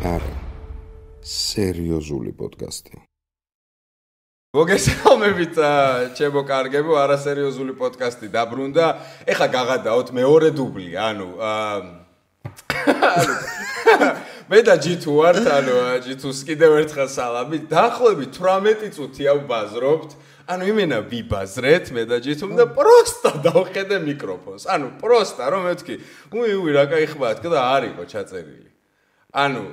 არა სერიოზული პოდკასტი. მოგესალმებით ჩემო კარგებო, არასერიოზული პოდკასტი დაბრუნდა. ეხლა გაღადაოთ მეორე დუბლი, ანუ მე და ჯითუ ვართ, ანუ ჯითუს კიდევ ერთხელ სალამი. დაახლოებით 18 წუთია ვბაზრობთ. ანუ იმენა ვიბაზრეთ მე და ჯითუმ და პროსტა დავხედე მიკროფონს. ანუ პროსტა რომ მეთქი, უი რა кай ხმათ და არისო ჩაწერილი. ანუ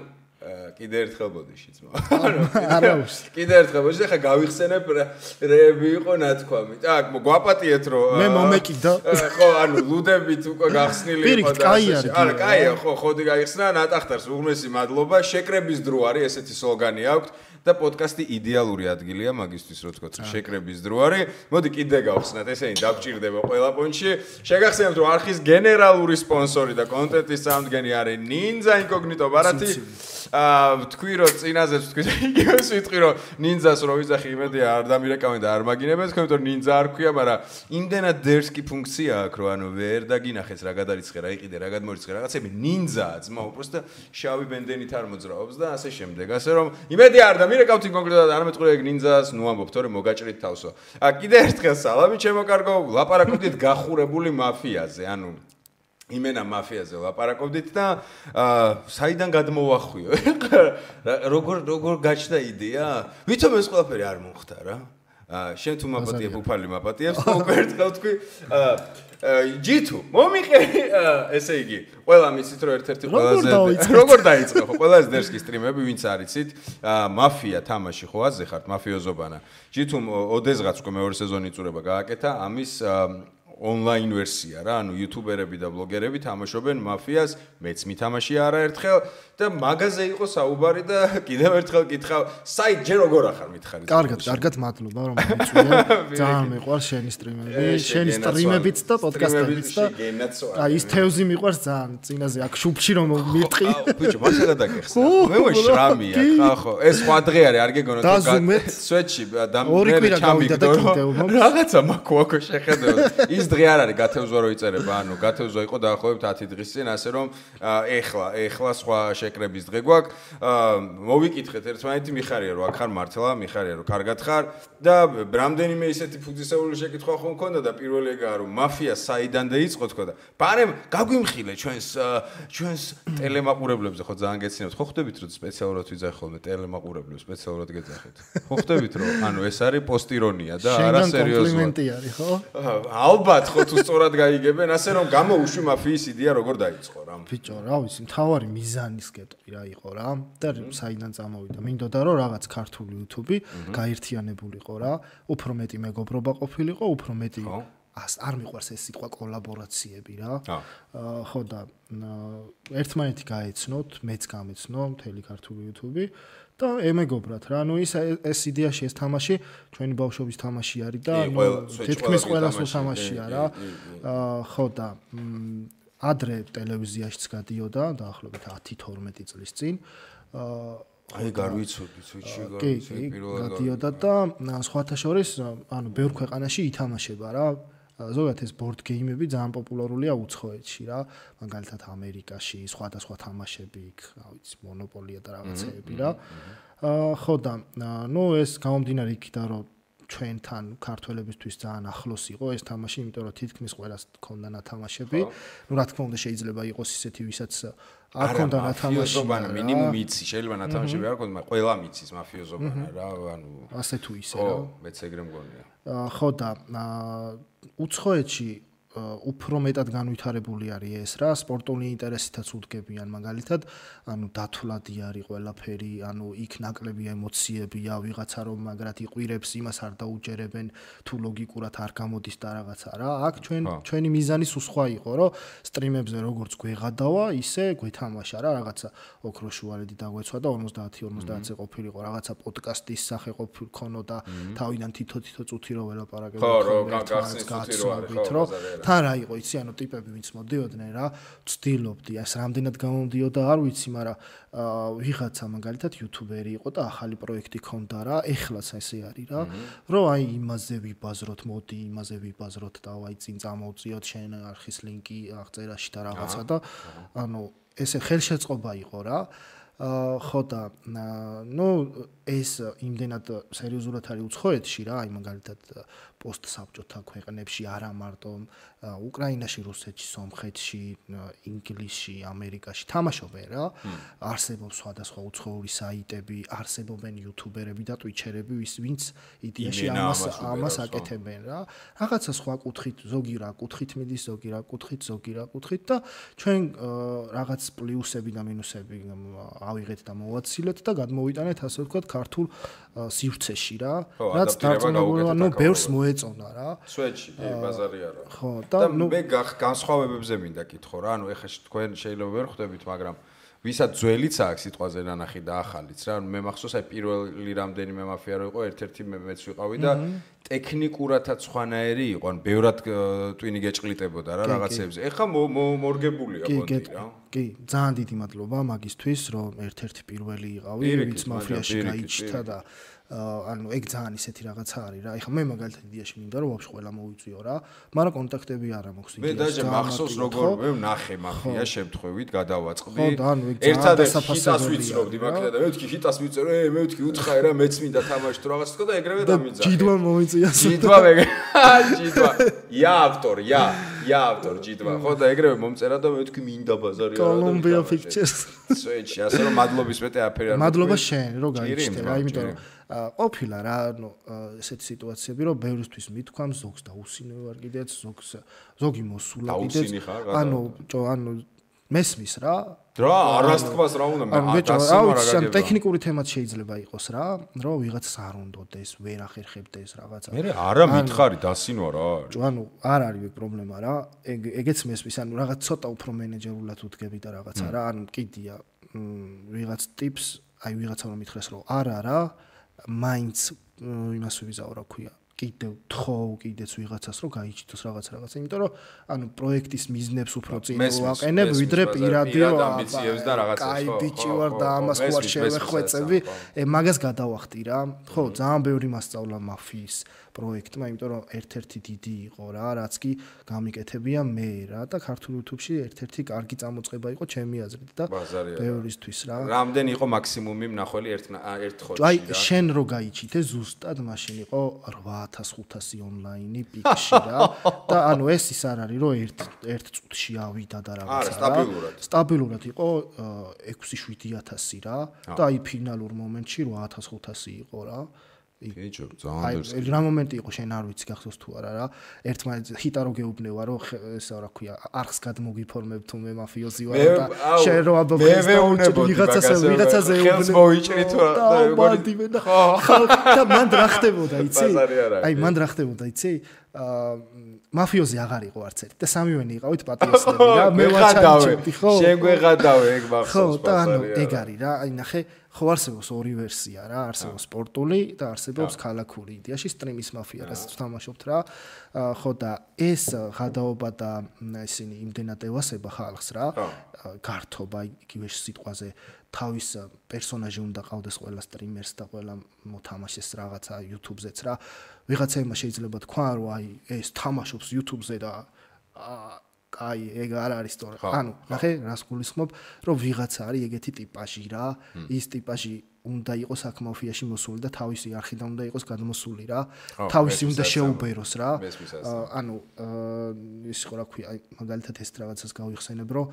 კიდე ერთხელ ბოდიში ძმა. ანუ კიდე ერთხელ ბოდიში ხა გავიხსენებ რეები იყო ნათქვამი. так, გვაპატიეთ რომ მე მომეკიდა. ხო, ანუ ლუდებით უკვე გახსნილი იყო და ასე. არა, კაია, ხო, ხოდი გაიხსნა ნატახტარს უღმესი მადლობა. შეკრების დრო არის, ესეთი სლოგანი აქვს. და პოდკასტი იდეალური ადგილია მაგისთვის რო თქვა შეკრების დრო არის. მოდი კიდე გავხსნათ, ესენი დაგჭირდება ყველა პონჩი. შეგახსენებთ რომ არხის გენერალური სპონსორი და კონტენტის წამდგენი არის Ninja Incognito ბარათი. თქვი რომ წინაზე თქვი და იგივეს ვიტყვი რომ Ninja-ს რო ვიძახი იმედია არ დამირეკავენ და არ მაგინებენ, თქვენ რომ Ninja არ ქვია, მაგრამ იმდენად დერსკი ფუნქცია აქვს რომ ანუ ვერ დაგინახეს რა გადარიცხე, რა იყიდე, რა გადმორიცხე რაღაცები Ninja-ა ძმა უბრალოდ შავი ბენდენით არ მოძრაობს და ასე შემდეგ. ასე რომ იმედია არ დამირეკავთ კონკრეტულად არ მეტყვი ეგ Ninja-ს ნუ ამბობ თორე მოგაჭრით თავსო. კიდე ერთხელ სალამი ჩემო კარგო, ლაპარაკობდით გახურებული მაფიაზე, ანუ იმენა მაფიაზე ლაპარაკობდით და საიდან გადმოვახვიო? როგორ გაჩნდა იდეა? ვითომ ეს ყველაფერი არ მომხდა რა? შენ თუ მაპატიებ უფალი მაპატიებს და უკვე ერთხელ თქვი ჯითუ მომიყევი ესე იგი ყველა მიცით რომ ერთ-ერთი ყველაზე როგორ დაიწყო ხო ყველაზე დერსკი სტრიმები ვინც არიცით მაფია თამაში ხო აზე ხართ მაფიოზობანა ჯითუმ ოდესღაც უკვე მეორე სეზონი იწურება გააკეთა ამის ონლაინ ვერსია რა ანუ იუთუბერები და ბლოგერები თამაშობენ მაფიას მეც მითამაშია არაერთხელ და მაგაზე იყო საუბარი და კიდევ ერთხელ კითხავ საით ჯერ როგორ ახარ მითხარი კარგად მადლობა რომ მიწვია ძალიან მიყვარს შენი სტრიმებიც და პოდკასტებიც და აი ის თევზი მიყვარს ძალიან წინაზე აქ შუბში რომ მიტყი ბიჭო მასალა დაგეხსნა მე მოშრამია ხო ეს სხვა დღე არის არ გეგონოთ სვეტში და მე ჩამიგდო რაღაცა მაქოაკო შეხედო ის დღე არ არის გათევზვა რო იწერება ანუ გათევზვა იყო დაახლოებით 10 დღის წინ ასე რომ ეხლა სხვა შეკრების დღე გვაქვს მოვიკითხეთ ერთმანეთი მიხარია რომ აქ ხარ მართლა მიხარია რომ კარგად ხარ და რამდენიმე ისეთი ფუძისეული შეკითხვა ხომ მქონდა და პირველი ეგაა რომ მაფია საიდან დაიწყო თქო და ბარემ გაგვიმხილე ჩვენს ტელემაყურებლებზე ხო ძალიან გეცინებთ ხო ხვდებით რომ სპეციალურად ვიძახი ხოლმე ტელემაყურებლებს სპეციალურად გეძახით ხო ხვდებით რომ ანუ ეს არის პოსტირონია და არა სერიოზულად კომპლიმენტი არის ხო ალბათ ხო თუ სწორად გაიგებენ ასე რომ გამოუშვი მაფიის იდეა როგორ დაიწყო რა ბიჭო რა ვიცი მთავარი მიზანის კეთრი რა იყო რა და საიდან წამოვიდა მინდოდა რომ რაღაც ქართული YouTube გაერთიანებულიყო რა უფრო მეტი მეგობრობა ყოფილიყო უფრო მეტი არ მიყვარს ეს სიტყვა კოლაბორაციები რა ხო და ერთმანეთი გაეცნოთ მეც გამეცნო მთელი ქართული YouTube და ემეგობრათ რა ანუ ეს იდეაში ეს თამაში ჩვენი ბავშვობის თამაში არის და თითქმის ყველას თამაშია რა ხო და ადრე ტელევიზიაშიც გადიოდა დაახლოებით 10-12 წლის წინ აი გარვიცოდი სუჩი გადიოდა და სხვათა შორის ანუ ბევრ ქვეყანაში ითამაშება რა ზოგადად ეს ბორდ გეიმები ძალიან პოპულარულია უცხოეთში რა მაგალითად ამერიკაში სხვადასხვა თამაშები იქ რა ვიცი მონოპოლია და რაღაცეები რა ხო და ნუ ეს გამომდინარე იქიდან რომ ჩვენთან ქართველებისთვის ძალიან ახლოს იყო ეს თამაში იმიტომ რომ თითქმის ყველას ჰქონდა ნათამაშები ნუ რა თქმა უნდა შეიძლება იყოს ისეთი ვისაც არ ჰქონდა ნათამაში მინიმუმ იცი შეიძლება ნათამაშები არ ჰქონდა მაგრამ ყველა მიცის მაფიოზობანა რა ანუ ასე თუ ისე რა მეც ეგრე მგონია ხო და უცხოეთში უფრო მეტად განვითარებული არის ეს რა სპორტული ინტერესითაც უდგებიან მაგალითად ანუ დათვლადი არის ყველაფერი ანუ იქ ნაკლები ემოციებია ვიღაცა რომ მაგრად იყვირებს იმას არ დაუჯერებენ თუ ლოგიკურად არ გამოდის და რაღაცა რა აქ ჩვენი მიზანი სხვა იყო რომ სტრიმებზე როგორც გვეღადავა ისე გვეთამაშა რა რაღაცა ოქროშუალედი დაგვეცვა და 50-50-ზე ყოფილიყო რაღაცა პოდკასტის სახე ყოფილქონოდა თავიდან თითო წუთი რო ველაპარაკებთ ხო რომ გახსნის თუთი რო არის ხო თან რა იყო იცი ანუ ტიპები ვინც მოდიოდნენ რა ვცდილობდი ეს რამდენად გამომდიოდა არ ვიცი მაგრამ ვიღაცა მაგალითად იუთუბერი იყო და ახალი პროექტი ქონდა რა ეხლაც ესე არის რა რომ აი იმაზე ვიბაზროთ მოდი იმაზე ვიბაზროთ და აი წინ წამოვწიოთ შენ არხის ლინკი აღწერაში და რაღაცა და ანუ ესე ხელშეწყობა იყო რა ხო და ეს იმდენად სერიოზულად არის უცხოეთში რა, აი მაგალითად პოსტსაბჭოთა ქვეყნებში, არა მარტო უკრაინაში, რუსეთში, სომხეთში, ინგლისში, ამერიკაში თამაშობენ რა. არსებობს სხვადასხვა უცხოური საიტები, არსებობენ იუთუბერები და ტვიჩერები, ვინც იდეაში ამას აკეთებენ რა. რაღაცა სხვა კუთხით, ზოგი რა კუთხით მიდის, ზოგი რა კუთხით და ჩვენ რაღაც პლუსები და მინუსები ავიღეთ და მოვაცილეთ და გადმოვიტანეთ ასე ვთქვათ ქართულ სივრცეში რა. რაც დარწმუნებული ბევრს მოეწონა რა. სვეტში ბაზარი არა. ხო და მე განსხვავებებზე მინდა კითხო რა. ანუ ეხლა თქვენ შეიძლება ვერ ხვდებით, მაგრამ ვისაც ძველიც აქვს სიტყვაზე ნანახი და ახალიც რა. მე მახსოვს აი პირველი რამდენიმე მაფია რო იყო, ერთ-ერთი მეც ვიყავი და ტექნიკურათაც სხვანაირი იყო, ან ბევრად ტვინი გეჭყლიტებოდა რა რაღაცებზე. ეხლა მორგებულია კონტი რა. კი, ძალიან დიდი მადლობა მაგისთვის, რომ ერთ-ერთი პირველი იყავი, ვინც მაფიაში გაიჩნდა და ანუ ეგ ძალიან ისეთი რაღაცა არის რა. ეხლა მე მაგალითად იდეაში მინდა რომ ვაფშე ყველა მოვიწვიო რა, მაგრამ კონტაქტები არ მაქვს იდეაში. მე დაჟე მახსოვს როგორ მე ვნახე მაფია შემთხვევით გადავაწყდი. ხო და ანუ ეგ ერთადერთი ჰიტას ვიცრობდი მაგდა და მე ვთქვი ჰიტას ვიწერო, მე ვთქვი უთხარი რა, მეც მინდა თამაში თუ რაღაც თქო და ეგრევე დამიძახე. ჯიდვა მომიწია. ჯიდვა ია ავტორ ჯიდვა. ხო და ეგრევე მომწერა და მე ვთქვი მინდა ბაზარი რა. Columbia Pictures. სვეტში, ასე რომ მადლობის მეტი აფერი არ. მადლობა შენ, რომ გაიჩნდა რა, იმიტომ რომ ყოფილა რა, ანუ ესეთი სიტუაციები, რომ ბევრისთვის მithქვამს, ზოგს დაუსინე ვარ კიდეც, ზოგი მოსულა კიდეც. ანუ მესმის რა. რა, არასთქმას რა უნდა მე დასიმარა ტექნიკური თემაც შეიძლება იყოს რა, რომ ვიღაცას არ უნდოდეს, ვერ ახერხებდეს რაღაცა. მე არა მითხარი დასინვა რა. ანუ არ არის ეგ პრობლემა რა. ეგეც მესმის, ანუ რაღაც ცოტა უფრო მენეჯერულად უდგები და რაღაცა რა, ანუ კიდია ვიღაც ტიპს, აი ვიღაცა რომ მითხრეს რომ არა რა, მაინც იმას ვიზაო რა ქვია. კიდევ თხოვ კიდეც ვიღაცას რომ გაიჩიტოს რაღაცა, იმიტომ რომ ანუ პროექტის მიზნებს უფრო წინ ვაყენებ, ვიდრე პირადი ამბიციებს და რაღაცას. აი ბიჭი ვარ და ამას ხوار შევეხვეწები, მაგას გადავახტი რა. ხო, ძალიან ბევრი მასწავლა მაფიის პროექტმა, იმიტომ რომ ერთ-ერთი დიდი იყო რა, რაც კი გამიკეთებია მე რა და ქართულ YouTube-ში ერთ-ერთი კარგი წამოწყება იყო ჩემი აზრით და ბევრისთვის რა. რამდენი იყო მაქსიმუმი მნახველი ერთ ხოდში რა? აი შენ რო გაიჩიტე ზუსტად მაშინ იყო 8500 ონლაინი პიკში რა და ანუ ეს ის არ არის რომ ერთ წუთში ავიდა და რაღაცა რა. სტაბილურად იყო 6-7000 რა და აი ფინალურ მომენტში 8500 იყო რა. კეჭო, ძალიან აი რა მომენტი იყო შენ არ ვიცი გახსოვს თუ არა რა. ერთმანეთს ჰიტა რო გეუბნება რომ ესა რა ქვია არხს გადმოგიფორმებ თუ მე მაფიოზი ვარ და შენ რო აბობეს ვიღაცაზე მოიჭრი თუ ხო და მან რა ხდებოდა იცი? აი მან რა ხდებოდა იცი? მაფიოზი აღარ იყო არც ერთი და სამივენი იყავით პატიოსნები რა. მე ვაჩაჩებდი ხო? შენ გვეღადავე ეგ მახსოვს. ხო და ანუ ეგ არის რა. აი ნახე ხო არსებობს ორი ვერსია რა, არსებობს სპორტული და არსებობს ქალაქური. იდეაში სტრიმის მაფია რაც თამაშობთ რა. ხო და ეს ღადაობა და ისინი იმდენად ევასება ხალხს რა. გართობა იგივე სიტყვაზე თავის პერსონაჟი უნდა ყავდეს ყველა სტრიმერს და ყველა მოთამაშეს რაღაცა YouTube-ზეც რა. ვიღაცამა შეიძლება თქვა რომ აი ეს თამაშობს YouTube-ზე და აი ეგ არ არის სწორი. ანუ ნახე რას გულისხმობ, რომ ვიღაცა არის ეგეთი ტიპაჟი რა. ის ტიპაჟი უნდა იყოს აქ მაფიაში მოსული და თავისი არხიდან უნდა იყოს გადმოსული რა. თავისი უნდა შეუბეროს რა. ანუ ის ხო რა ქვია, აი მაგალითად ეს რაღაცას გავიხსენებ, რომ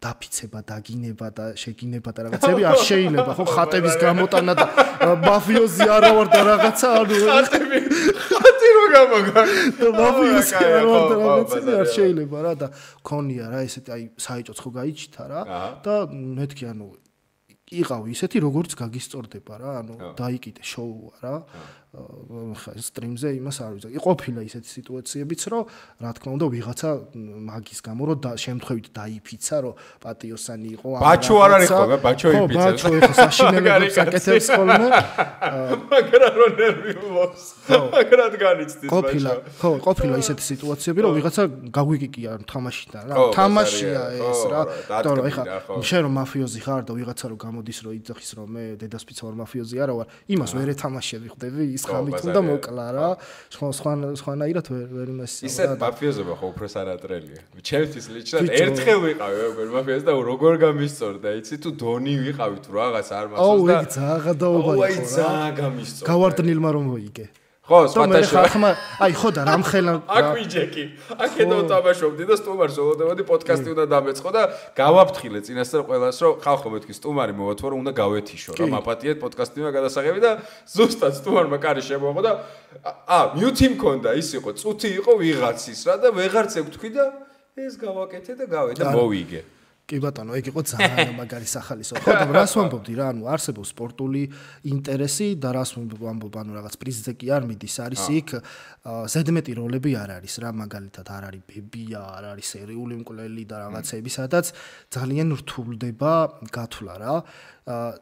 დაფიცება, დაგინება და შეგინება და რაღაცები არ შეიძლება, ხო ხატების გამოტანა და მაფიოზი არა ვარ და რაღაცა, ანუ ხატი რო გამოგა. მაფიოზი არა ვარ და რაღაცები არ შეიძლება რა და ქონია რა ესეთი აი საეჭოც ხო გაიჩითა რა და მეთქი ანუ იყავი ისეთი როგორც გაგისწორდება რა, ანუ დაიკიდე შოუა რა. ხა სტრიმზე იმას არ ვიცი. ყოფილა ისეთი სიტუაციებიც, რომ რა თქმა უნდა ვიღაცა მაგის გამო რომ შემთხვევით დაიფიცა, რომ პატიოსანი იყო. ბაჩო არ არის ხოლმე, ბაჩო იფიცებს. ხო, ბაჩო ეხა საშინელებას აკეთებს ხოლმე. მაგრამ რო ნერვი ულობს. მაგრამ განიცდის ბაჩო. ხო, ყოფილა ისეთი სიტუაციები, რომ ვიღაცა გაგვიკიკია თამაშიდან რა. თამაშია ეს რა. იმიტომ რომ ეხა შენ რომ მაფიოზი ხარ და ვიღაცა რომ გამოდის რომ იძახის რომ მე დედასპიცა ვარ მაფიოზი არა ვარ, იმას ვერ ეთამაშები ხდები ის ის ხამით უნდა მოკლა რა. სხვანაირად ვერ იმასია. ისეთ მაფიოზობა ხო უფრო სანატრელია. ჩემთვის ლიჩნად ერთხელ ვიყავი როგორ მაფიოზი და როგორ გამისწორდა, იცი თუ დონი ვიყავი თუ რაღაც არ მახსოვს და აი ძალიან გადაობა იყო. აი ძალიან გამისწორდა. გავარდნილმა რომ მოიგე. ხო, სპატაშო. აი ხო და რამხელა აქ ვიჯეკი. აქედო თამაშობდი და სტუმარს ველოდებოდი პოდკასტი უნდა დამეწყო და გავაფრთხილე წინასწარ ყველას რომ ხალხო მეთქი სტუმარი მოვათვო რომ უნდა გავეთიშო რა მაპატიეთ პოდკასტი უნდა გადასაღები და ზუსტად სტუმარმა კარი შემოაღო და მიუთი მქონდა ის იყო წუთი იყო ვიღაცის რა და ვეღარც ეკ თქვი და ეს გავაკეთე და გავე და მოვიგე. კი ბატონო, ეგ იყო ძალიან მაგარი სახალისო. ხო და რას ვამბობდი რა, ანუ არსებობს სპორტული ინტერესი და რას ვამბობ, ანუ რაღაც პრიზზე კი არ მიდის, არის იქ ზედმეტი როლები არ არის რა, მაგალითად არ არის ბებია, არ არის სერიული მკვლელი და რაღაცები, სადაც ძალიან რთულდება გათვლა რა.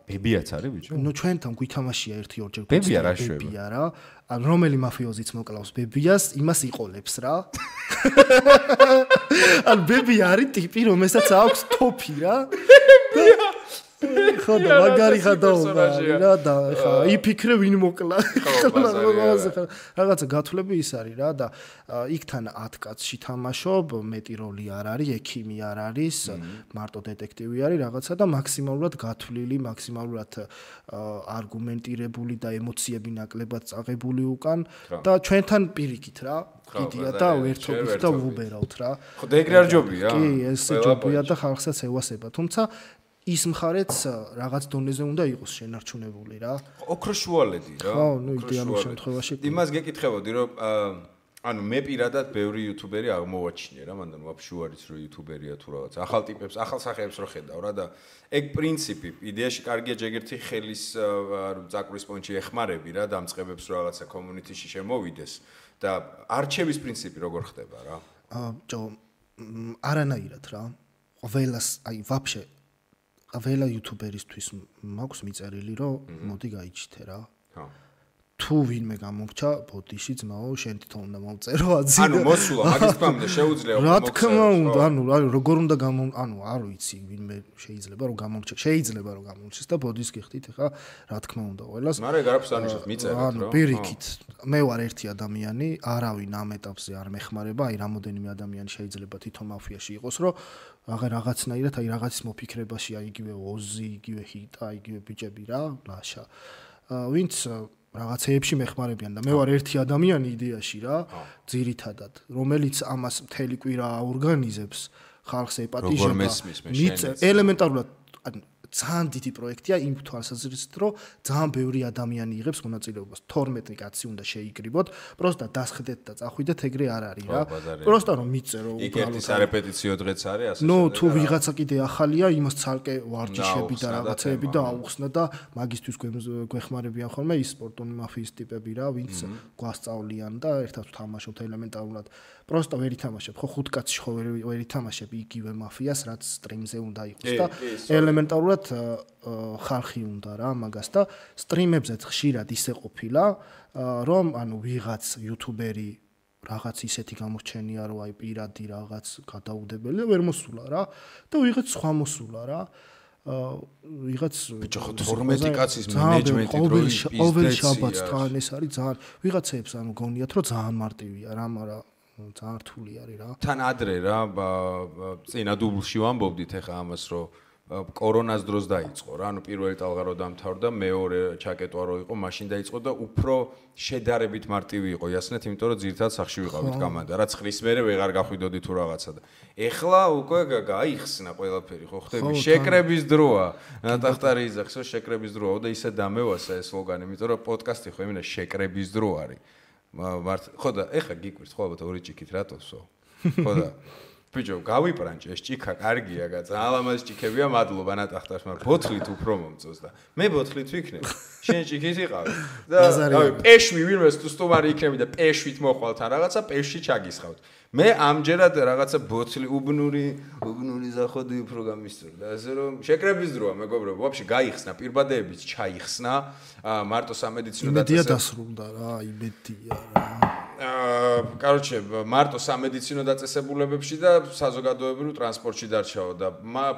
ბებიაც არის ბიჭო? ნუ ჩვენთან გვითამაშია 1-2 ჯერ ბებია რა. ან რომელი მაფიოზიც მოკლავს ბებიას, იმას იყოლებს რა. ან ბებია არის ტიპი, რომელსაც აქვს თოფი რა. ხო და მაგარი ხადაობა რა და ხა იფიქრე ვინ მოკლა. რაღაცა გათვლები ის არის რა და იქთან 10 კაცში თამაშობ, მეტი როლი არ არის, ექიმი არ არის, მარტო დეტექტივი არის რაღაცა და მაქსიმალურად გათვლილი, მაქსიმალურად არგუმენტირებული და ემოციები ნაკლებად წაღებული უკან და ჩვენთან პირიქით რა. კიდია და ვერთობით და ვუბერავთ რა. ხო და ეგრე არ ჯობია? კი, ეს ჯობია და ხალხსაც ევასება, თუმცა ის მხარეც რაღაც დონეზე უნდა იყოს შენარჩუნებული რა. ოქროშუალედი რა. ხო, ნუ იდეალურ შემთხვევაში. იმას გეკითხებოდი რომ ანუ მე პირადად ბევრი იუთუბერი აღმოვაჩინე რა, მანდ ვაფშე არის რომ იუთუბერია თუ რაღაც ახალ ტიპებს, ახალ სახეებს რო ხედავ რა და ეგ პრინციპი იდეაში კარგია ჯერერთი ხელის წაკრის პონჩი ეხმარები რა დამწყებებს რაღაცა კომუნიტიში შემოვიდეს და არჩევის პრინციპი როგორ ხდება რა? არანაირად რა. ყველას აი ვაფშე ყველა იუთუბერისთვის მაქვს მიწერილი რომ მოდი გაიჩითე რა. ხო. თუ ვინმე გამომრჩა ბოდიში ძმაო, შენ თვითონ უნდა მომწერო აზრი. ანუ მოსულა მაგის თქმამდე შეუძლია რა თქმა უნდა, ანუ როგორ უნდა ანუ არ ვიცი ვინმე შეიძლება რომ გამომრჩა, შეიძლება რომ გამომრჩეს და ბოდის გიხდით ხა, რა თქმა უნდა ყველას. მაგრამ ეგ არაფერს ანიშნავს მიწერეთ რა. ანუ პირიქით, მე ვარ ერთი ადამიანი, არავინ ამ ეტაპზე არ მეხმარება, აი რამოდენიმე ადამიანი შეიძლება თვითონ მაფიაში იყოს, რომ რაღაცნაირად აი რაღაცის მოფიქრებაში, აი იგივე ოზი, იგივე ჰიტა, იგივე ბიჭები რა, ლაშა. ვინც რაღაცეებში მეხმარებიან და მე ვარ ერთი ადამიანი იდეაში რა, ძირითადად, რომელიც ამას მთელი კვირა აორგანიზებს, ხალხს ეპატიჟება. ელემენტარულად ძალიან დიდი პროექტია იმ თვალსაზრისით, რომ ძალიან ბევრი ადამიანი იღებს მონაწილეობას. 12 კაცი უნდა შეიკრიბოთ, პროსტა დასხდეთ და წახვიდეთ, ეგრე არ არის რა. პროსტა რომ მიწერო უბრალოდ. იქ ერთი სარეპეტიციო დღეც არის, ასე. ნუ თუ ვიღაცა კიდე ახალია, იმას ცალკე ვარჯიშები და რაღაცეები და აუხსნა და მაგისთვის გვეხმარებიან ხოლმე ის სპორტული მაფიის ტიპები რა, ვინც გვასწავლიან და ერთად ვთამაშობთ ელემენტარულად. პროსტა ვერ ითამაშებ, ხო 5 კაცში ხო ვერ ითამაშებ იგივე მაფიას, რაც სტრიმზე უნდა იყოს და ელემენტარულად ხალხი უნდა რა მაგას და სტრიმებზეც ხშირად ისე ყოფილა რომ ანუ ვიღაც იუთუბერი რაღაც ისეთი გამორჩენია რომ აი პირადი რაღაც გადაუდებელი ვერ მოსულა რა და ვიღაც სხვა მოსულა რა ვიღაც ბიჭო 12 კაცის მენეჯმენტი დროის ყოველ შაბათს თან ეს არის ძალიან ვიღაცებს ანუ გონიათ რომ ძალიან მარტივია რა მაგრამ ძალიან რთული არის რა თან ადრე რა წინა დუბლში ვამბობდით ეხა ამას რომ კორონას დროს დაიწყო რა, ანუ პირველი ტალღა რო დამთავრდა, მეორე ჩაკეტვა რო იყო, მაშინ დაიწყო და უფრო შედარებით მარტივი იყო იასნეთ, იმიტომ რომ ძირითადად სახში ვიყავით კამანდა, რაც ხრის მერე ვეღარ გახვიდოდი თუ რაღაცა და ეხლა უკვე გაიხსნა ყველაფერი, ხო ხდები? შეკრების დროა. ნატახტარი იძახსო შეკრების დროა და ისე დამევასა ეს სლოგანი, იმიტომ რომ პოდკასტი ხო იმენა შეკრების დრო არის. ხო და ეხლა გიკვირს ხო ალბათ ორი ჭიქით რატოსო? ხო და ბიჭო, გავიპრანჭე ეს ჭიქა, კარგია, ძალიან ლამაზი ჭიქებია, მადლობა ნატახტარს, მაგრამ ბოთლით უფრო მომწონს და მე ბოთლით ვიქნებ. შენ ჭიქით იყავი. და რავი, პეშვი ვინმეს თუ სტუმარი იქნები და პეშვით მოხვალ თან რაღაცა, პეშვი ჩაგისხავთ. მე ამჯერად რაღაცა ბოთლი უბნური ზახოდი უფრო გამისწორდა. ასე რომ შეკრების დროა, მეგობრებო, ვაფშე გაიხსნა, პირბადეებიც ჩაიხსნა, მარტო სამედიცინო დაწესება დასრულდა რა, იმედია რა. короче, მარტო სამედიცინო დაწესებულებებში და საზოგადოებრივ ტრანსპორტში დარჩაო და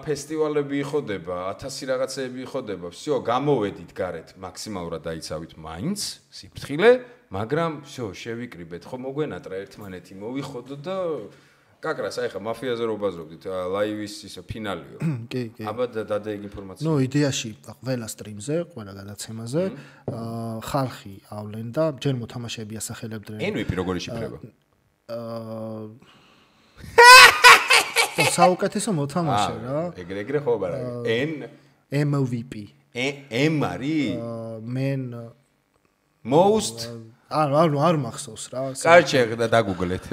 ფესტივალები იხოდება, 1000 რაღაცეები იხოდება. всё, გამოვედით გარეთ, მაქსიმალურად დაიცავით მაინც, სიფრთხილე, მაგრამ всё, შევიკრიბეთ. ხო მოგვენატრა ერთმანეთი, მოვიხოდო და კაკრას, აი ხა მაფიაზე რო ბაზრობდით, ლაივის ისე ფინალიო. კი. აბა დადეგ ინფორმაცია. ნუ იდეაში ყველა სტრიმზე, ყველა გადაცემაზე ხალხი ავლენ და ჯერ მოთამაშეები ასახელებდნენ. MVP როგორი შიფრება? საუკეთესო მოთამაშე რა. ეგრე ხო არა. MVP. M არის? Men most არ მახსოვს რა. კარჩე და დაგუგლეთ.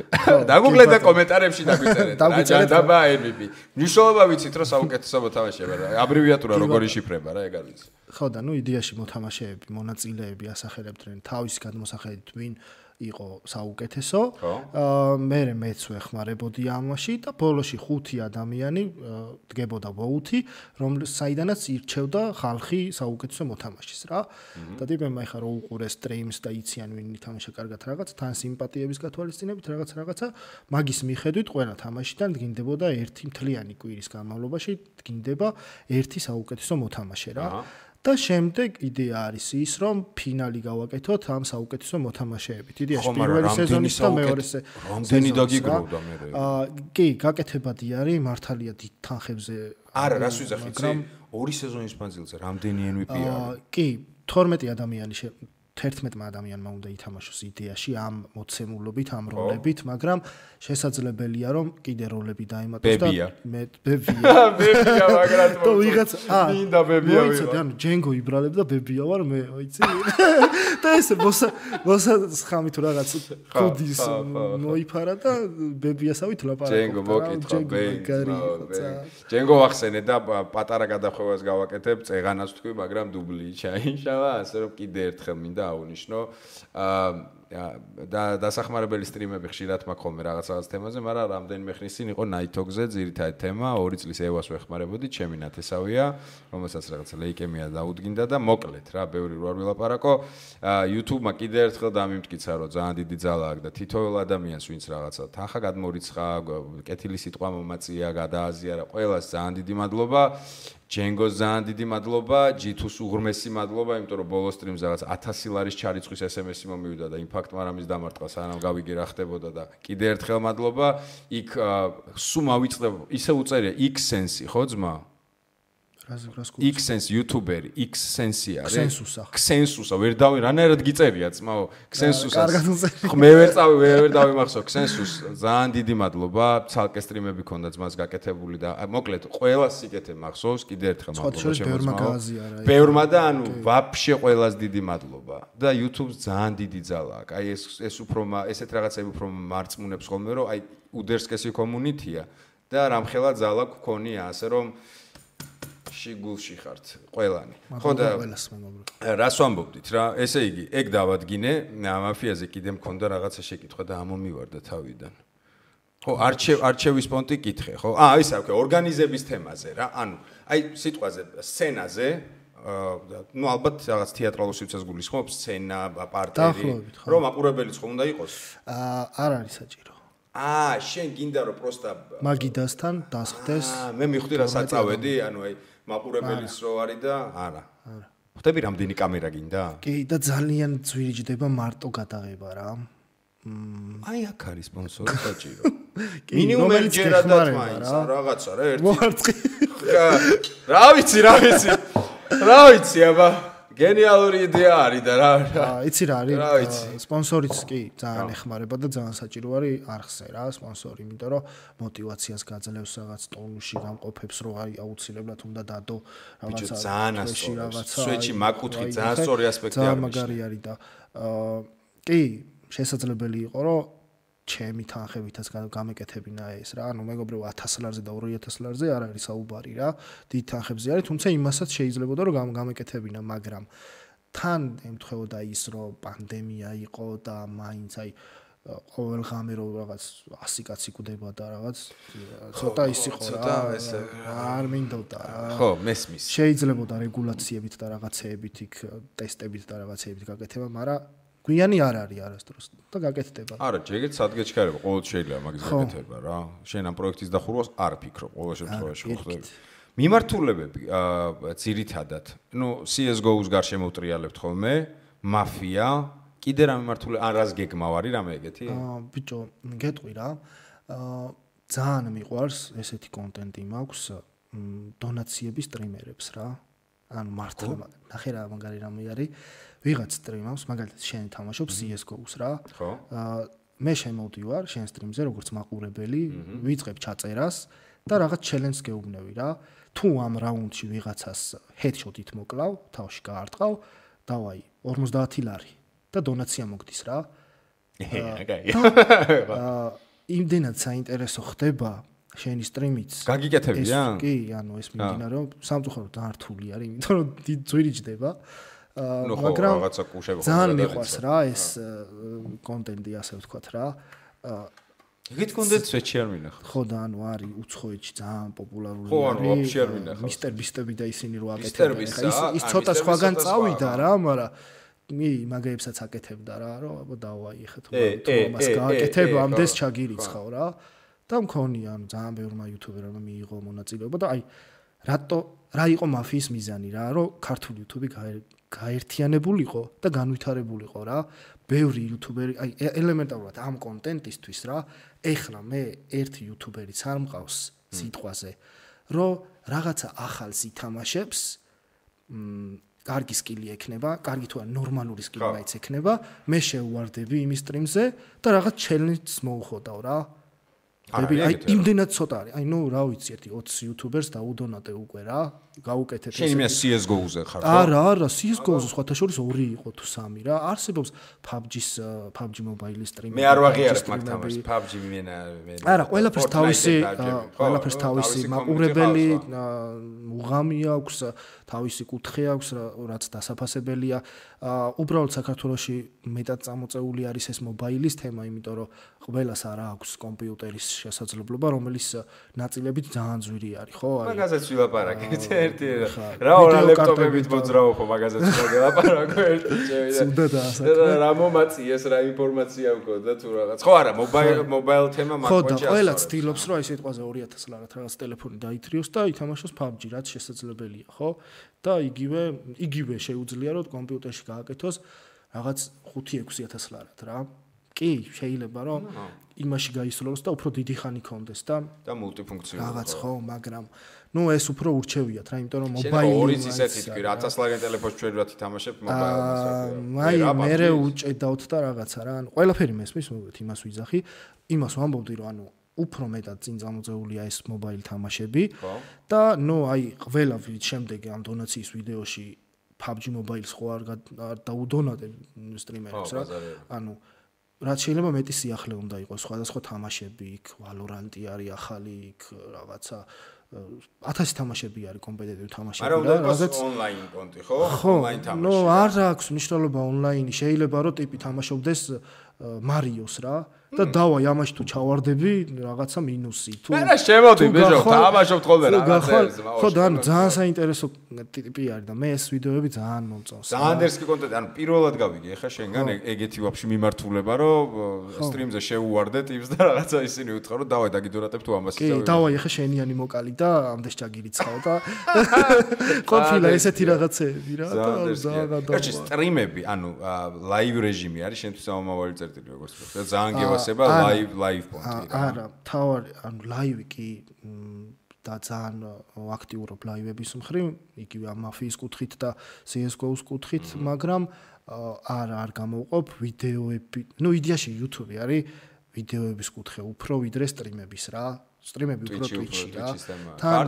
დაგუგლეთ და კომენტარებში დაგვიწერეთ. რა ჯანდაბა MVP. ნიშნულობა ვიცით რომ საუკეთესო მოთამაშეა რა. აბრევიატურა როგორი შიფრება რა ეგ არის. ხო და ნუ იდეაში მოთამაშეები, მონაწილეები ასახელებდნენ თავის გადმოსახედით ვინ იყო საუკეთესო. მე მეც ვეხმარებოდი ამაში და ბოლოში 5 ადამიანი დგებოდა ვოუთი, საიდანაც ირჩევდა ხალხი საუკეთესო მოთამაშეს რა. და ტიპებმა ეხა რო უყურეს სტრიმს და იციან ვინ ითამაშა კარგად რაღაც, თან სიმპათიების გათვალისწინებით რაღაცა მაგის მიხედვით ყველა თამაშიდან დგინდებოდა ერთი მთლიანი კვირის განმავლობაში დგინდება ერთი საუკეთესო მოთამაშე რა. და შემდეგ იდეა არის ის, რომ ფინალი გავაკეთოთ ამ საუკეთესო მოთამაშეებით. იდეაში პირველი სეზონის და მეორე რამდენი დაგიგროვდა მე. კი, გაკეთებადი არის, მართალია დიდ თანხებზე. არა, რას ვიზახ იცი? 2 სეზონის მანძილზე რამდენი MVP არის? კი, 12 ადამიანი 11 ადამიანმა უნდა ითამაშოს იდეაში ამ მოცემულობით, ამ როლებით, მაგრამ შესაძლებელია რომ კიდე როლები დაემატოს და მე ბებია მაგრამ თუ ვიღაც მინდა ბებია ვიღაც ანუ ჯენგო იბრალებდა ბებია ვარ მე ვიცი და ესე მოსა ხამი თუ რაღაც კოდის მოიფარა და ბებიასავით ლაპარაკობდა ჯენგო მოკითხა ჯენგო ახსენე და პატარა გადახვევას გავაკეთებ წეღანას თქვი მაგრამ დუბლი ჩაიშალა ასე რომ კიდე ერთხელ მინდა აუნიშნო და დასახმარებელი სტრიმები ხშირად მაქვს ხოლმე რაღაც თემაზე, მაგრამ რამდენიმე ხნის წინ იყო Night-ზე ძირითადი თემა, 2 წლის ევას ვეხმარებოდი, ჩემი ნათესავია, რომელსაც რაღაც ლეიკემია დაუდგინდა და მოკლედ რა, ბევრი რო არ ვილაპარაკო, YouTube-მა კიდე ერთხელ დამიმტკიცა, რომ ძალიან დიდი ძალა აქვს და თითოეულ ადამიანს, ვინც რაღაცა თანხა გადმორიცხა, კეთილი სიტყვა მომაწია, გადააზიარა, ყველას ძალიან დიდი მადლობა. ჯენგოს ძალიან დიდი მადლობა, ჯითუს უღრმესი მადლობა, იმიტომ რომ ბოლო სტრიმზე რაღაც 1000 ლარის ჩარიცხვის SMS-ი მომივიდა და იმპაქტ მარამის დამარტყა, სანამ გავიგე რა ხდებოდა და კიდე ერთხელ მადლობა. იქ სულ მავიწყდა, ისე უწერია X-Sense, ხო ძმა? X-Sense YouTuberi, X-Sense არის. Xensusa, ვერ დავი, რანაირად გიწერია ძმაო, Xensusa. მე ვერ დავიმახსოვ Xensus, ძალიან დიდი მადლობა, ცალკე სტრიმები ქონდა ძმას გაკეთებული და მოკლედ ყველას სიკეთე მახსოვს, კიდე ერთხელ მადლობა შემოწმაო. ბევრმა და ანუ ვაფშე ყველას დიდი მადლობა და YouTube-ს ძალიან დიდი ძალა აქვს. აი ეს უფრო ესეთ რაღაცები უფრო მარწმუნებს ხოლმე, რომ აი უდერსკესი კომუნიტია და რამხელა ძალა გქონია, ასე რომ შიგულში ხართ ყველანი. ხო და რას ვამბობდით რა? ესე იგი, ეგ დავადგინე, მაფიაზე კიდე მქონდა რაღაცა შეკითხვა და ამომივარდა თავიდან. ხო, არჩევის პონტი კითხე, ხო? ის აქვს ორგანიზების თემაზე რა. ანუ, აი სიტყვაზე, სცენაზე, ну ალბათ რაღაც თეატრალურ სივრცეს გულისხმობს, სცენა, პარტერი, რომ აყურებელიც ხომ უნდა იყოს? არ არის საჭირო. შენ გინდა რომ პროსტა მაგიდასთან დასხდეს. მე მივხვდი რა საწავედი, ანუ აი მაყურებელიც რო არის და არა. ხვდები რამდენი კამერა გინდა? კი და ძალიან ძვირიჯდება მარტო გადაღება რა. აი აქ არის სპონსორი საჭირო. მინიმუმ ერთჯერად მაინც რაღაცა რა ერთი. მოარწყი. რა ვიცი. რა ვიცი აბა. გენიალური იდეა არის და რა. იცი რა არის? სპონსორიც კი ძალიან ეხმარება და ძალიან საჭირო არის არხზე რა სპონსორი, იმიტომ რომ მოტივაციას გაძლევს რაღაც ტონუსში გამყოფებს, რომ აი აუცილებლად უნდა დადო რაღაცა. ძალიან ასწორებს. სვეჩი მაკუთხი ძალიან სწორი ასპექტი არის. ძალიან მაგარი არის და კი შესაძლებელი იყო რომ ჩემი თანხებითაც გამეკეთებინა ეს რა. ანუ მეგობრებო 1000 ლარზე და 2000 ლარზე არ არის საუბარი რა. დიდ თანხებზე არის, თუმცა იმასაც შეიძლებოდა რომ გამეკეთებინა, მაგრამ თან ემთხვეოდა ის რომ პანდემია იყო და მაინც აი ყოველ ღამე რომ რაღაც 100 კაცი კვდება და რაღაც ცოტა ის იყო რა. არ მინდოდა რა. ხო, მესმის. შეიძლებოდა რეგულაციებით და რაღაცეებით იქ ტესტებით და რაღაცეებით გაკეთება, მაგრამ გვიანი არ არის არასდროს და გაკეთდება. არა, ჯერით სადგეჩქარება, ყოველ შეიძლება მაგის გაკეთება რა. შენ ამ პროექტის დახურვას არ ფიქრობ, ყოველ შემთხვევაში ხდება. მიმართულებები ძირითადად, CS:GO-ს გარშემო უტრიალებთ ხოლმე, მაფია, კიდე რა მიმართულება, ან რას გეგმავ არის რამე ეგეთი? ბიჭო, გეტყვი რა. ძალიან მიყვარს ესეთი კონტენტი მაქვს დონაციების სტრიმერებს რა. ანუ მართლა ნახე რა მაგარი რამე არის. ვიღაც სტრიმავს, მაგალითად შენ თამაშობ CS:GO-ს რა. ხო. მე შემოვდივარ შენ სტრიმზე როგორც მაყურებელი, ვიწყებ ჩაწერას და რაღაც ჩელენჯს გეუბნევი რა. თუ ამ რაუნდში ვიღაცას headshot-ით მოკლავ, თავში გაარტყავ, დავაი 50 ლარი და დონაცია მოგდის რა. იმდენად საინტერესო ხდება შენი სტრიმიც. გაგიკეთებია? კი, ანუ ეს მიმდინარეობს, სამწუხაროდ დართული არის, იმიტომ რომ ძვირი ჯდება. მაგრამ რაღაცა კუშები ძალიან მიყვარს რა ეს კონტენტი, ასე ვთქვათ რა. ეგეთ კონტენტს ვეჩი არ მინახავს. ხო და ანუ არის უცხოეთში ძალიან პოპულარული ხო, ანუ ვაფშე არ მინახავს. მისტერ ბისტები და ისინი რო აკეთებენ. ის ცოტა სხვაგან წავიდა რა, მაგრამ მაგეებსაც აკეთებდა რა, რომ აბა დავაი ხა თუ ამას გააკეთებ, ამდენს ჩაგირიცხავ რა. და მქონია, ანუ ძალიან ბევრმა იუთუბერმა მიიღო მონაწილეობა და აი რა იყო მაფიის მიზანი რა, რომ ქართული იუთუბი გაერთიანებულიყო და განვითარებულიყო რა. ბევრი იუთუბერი, აი ელემენტარულად ამ კონტენტისთვის რა, ეხლა მე ერთი იუთუბერიც არ მყავს სიტყვაზე, რომ რაღაცა ახალს ითამაშებს, კარგი სკილი ექნება, კარგი თუ არა ნორმალური სკილი მაინც ექნება, მე შევუვარდები იმის სტრიმზე და რაღაც ჩელენჯს მოუხოდავ რა. აი იმდენად ცოტა არის. აი რა ვიცი, ერთი 20 იუთუბერს დაუდონატე უკვე რა, გაუკეთეთ შენ იმას CS:GO-ზე ხარ ხო? არა, CS:GO-ზე სხვათა შორის 2 იყო თუ 3 რა. არსებობს PUBG Mobile-ის სტრიმი. მე არ ვაღიარებ მაგ თამაშს, PUBG მენა. არა, ყველაფერს თავისი მაყურებელი მუღამი აქვს, თავისი კუთხე აქვს, რაც დასაფასებელია. უბრალოდ საქართველოში მეტად წამოწეული არის ეს მობაილის თემა, იმიტომ რომ ყველას არ აქვს კომპიუტერის შესაძლებლობა, რომელიც ნაწილებით ძალიან ძვირი არის, ხო? მაგაზეც ვილაპარაკეთ ერთი რა ლეპტოპებით მოძრაობ, მაგაზეც ვილაპარაკო ერთი წევიდა. რა მომაწიეს, რა ინფორმაცია მქონდა თუ რაღაც. ხო არა, მობაილ თემა მაგ ხო და ყველა ცდილობს, რომ აი სიტყვაზე 2000 ლარად რაღაც ტელეფონი დაითრიოს და ითამაშოს PUBG, რაც შესაძლებელია, ხო? და იგივე შეუძლია რომ კომპიუტერში გააკეთოს რაღაც 5-6000 ლარად რა. კი, შეიძლება რომ იმაში გაისრულოს და უფრო დიდი ხანი კონდეს და მულტიფუნქციონალური რაღაც ხო, მაგრამ ეს უფრო ურჩევიათ რა, იმიტომ რომ მობაილი ორიც ისეთი თქვი, 1000 ლარიან ტელეფონს ჩვენ რა თამაშებ მობაილს. მე უჭედავთ და რაღაცა რა, ანუ ყველაფერი მესმის, მოგეთ იმას ვიძახი, იმას ვამბობდი რომ ანუ უფრო მეტად წინ წამოწეულია ეს მობაილ თამაშები და აი ყველა შემდეგ ამ დონაციის ვიდეოში PUBG Mobile-ს ხო არ დაუდონატებ სტრიმერებს რა. ანუ რაც შეიძლება მეტი სიახლე უნდა იყოს სხვადასხვა თამაშები, იქ Valorant-ი არის ახალი, იქ რაღაცა 1000 თამაშები არის კომპეტიტივ თამაშები რა, რაღაცა ონლაინ კონტი ხო? ონლაინ თამაში. არ აქვს მნიშვნელობა ონლაინი, შეიძლება რომ ტიპი თამაშობდეს მარიოს რა და დავაი ამაში თუ ჩავარდები რაღაცა მინუსი თუ მე რა შემოდი ბეჟო თამაშობთ ხოლმე რაღაცებს ხო და ანუ ძალიან საინტერესო ტიპი არის და მე ეს ვიდეოები ძალიან მომწონს ძალიან დერსკი კონტენტი ანუ პირველად გავიგე ხა შენგან ეგეთი ვაფშე მიმართულება რომ სტრიმზე შევუვარდე ტიპს და რაღაცა ისინი უთხრა რომ დავაი დაგიდურატებ თუ ამას იცავ კი დავაი ხა შენიანი მოკალი და ამდენს ჩაგირიცხავ და ყოფილა ესეთი რაღაცეები რა და ძალიან და სტრიმები ანუ ლაივ რეჟიმი არის შენთვის ამავალი წერტილი როგორც და ძალიან გევასება ლაივ პონტი რა არა თავარი ანუ ლაივი კი და ძალიან აქტიურობ ლაივების მხრივ იგივე ამ მაფიის კუთხით და CS:GO-ს კუთხით მაგრამ არ გამოვყოფ ვიდეოები იდეაში YouTube არის ვიდეოების კუთხე უფრო ვიდრე სტრიმების რა სტრიმები უფრო Twitch-ში რა თან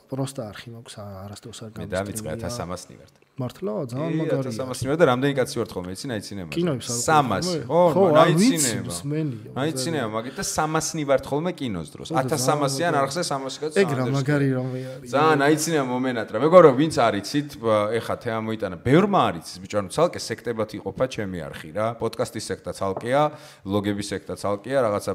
просто არხი მაქვს არასდროს არ გამოსტრიმია მე დავიწყე 1300 ნივართ მართლა ძალიან მაგარია 1300 ნივართ და რამდენი კაცი ვართ ხოლმე იცი აიცინებ 300 ხო აიცინებ მაგით და 300 ნივართ ხოლმე კინოს დროს 1300-იან არხზე 300 კაცი ეგ რა მაგარი რამე არის ძალიან აიცინებ მომენატრა მეგობრებო ვინც არიცით ეხა თემა მოიტანა ბევრმა არიცის ბიჭო ანუ ცალკე სექტებად იყოფა ჩემი არხი რა პოდკასტის სექტა ცალკეა ლოგების სექტა ცალკეა რაღაცა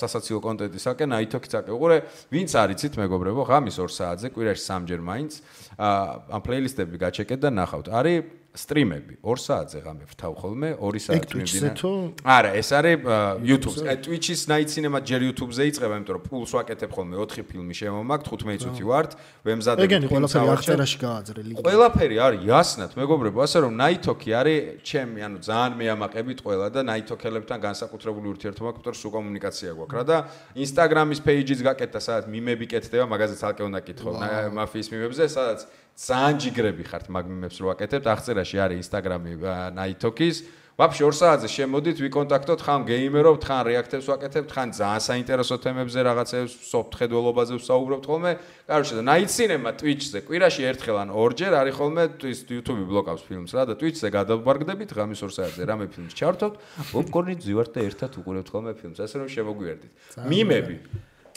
სასაცილო კონტენტის საკე ნაითოქი ცალკე უყურე ვინც არიცით მეგობრებო ღამის 2 საათზე კვირაში 3 ჯერ მაინც ამ პლეილისტები გაჩეკეთ და ნახავთ. არის სტრიმები 2 საათზე ღამე ვთავ ხოლმე 2 საათი მიმდინარე. არა, ეს არის YouTube-ზე. Twitch-ის Night Cinema ჯერ YouTube-ზე იწყება, იმიტომ რომ ფულს ვაკეთებ ხოლმე 4 ფილმი შემომაქვს, 15 წუთი ვართ, ვემზადებ. ეგენი ყველაფერი აღწერაში გააძრელი. ყველაფერი არის იასნად, მეგობრებო, ასე რომ Night Talk-ი არის ჩემი, ანუ ძალიან მეამაყებით ყველა და Night Talk-ელებთან განსაკუთრებული ურთიერთობა გვაქვს, იმიტომ რომ სულ კომუნიკაცია გვაქვს რა და Instagram-ის page-იც გაკეთდა, სადაც მიმები კეთდება, მაგაზე ცალკე უნდა კითხო მაფიის მიმებზე, სადაც ძალიან ჯიგრები ხართ მაგ მიმებს რო ვაკეთებთ, აღწერაში არის Instagram-ი Night Talk-ის. Вообще 2 საათზე შემოდით, ვიკონტაქტოთ, ხან გეიმერობთ, ხან რეაქტებს ვაკეთებთ, ხან ძალიან საინტერესო თემებზე რაღაცებს, soft ხედველობაზე ვსაუბრობთ ხოლმე. Короче, და Night Cinema Twitch-ზე კვირაში ერთხელ ან ორჯერ არის ხოლმე YouTube-ი ბლოკავს ფილმს რა და Twitch-ზე გადავბარგდებით, ღამის 2 საათზე რამე ფილმს ჩავთვით, პოპკორნით ვივართ და ერთად უყურებთ ხოლმე ფილმს, ასე რომ შემოგვიერთდით. მიმები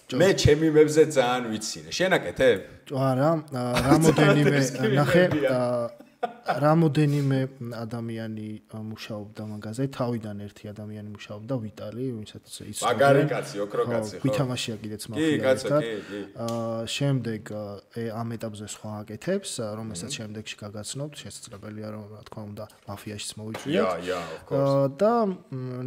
მე ჩემი მებზე ძალიან ვიცინე. შენ აკეთებ? არა, რამოდენიმე ნახე რამოდენიმე ადამიანი მუშაობდა მაგაზე, თავიდან ერთი ადამიანი მუშაობდა ვიტალი, ვისაც ის მაგარი კაცი, ოქრო კაცი ხო. ვითამაშია კიდეც მაფია. შემდეგ ამ ეტაპზე სხვა აკეთებს, რომელსაც შემდეგში გაგაცნობთ, შესაძლებელია რომ რა თქმა უნდა მაფიაშიც მოვიწვიოთ. of course. და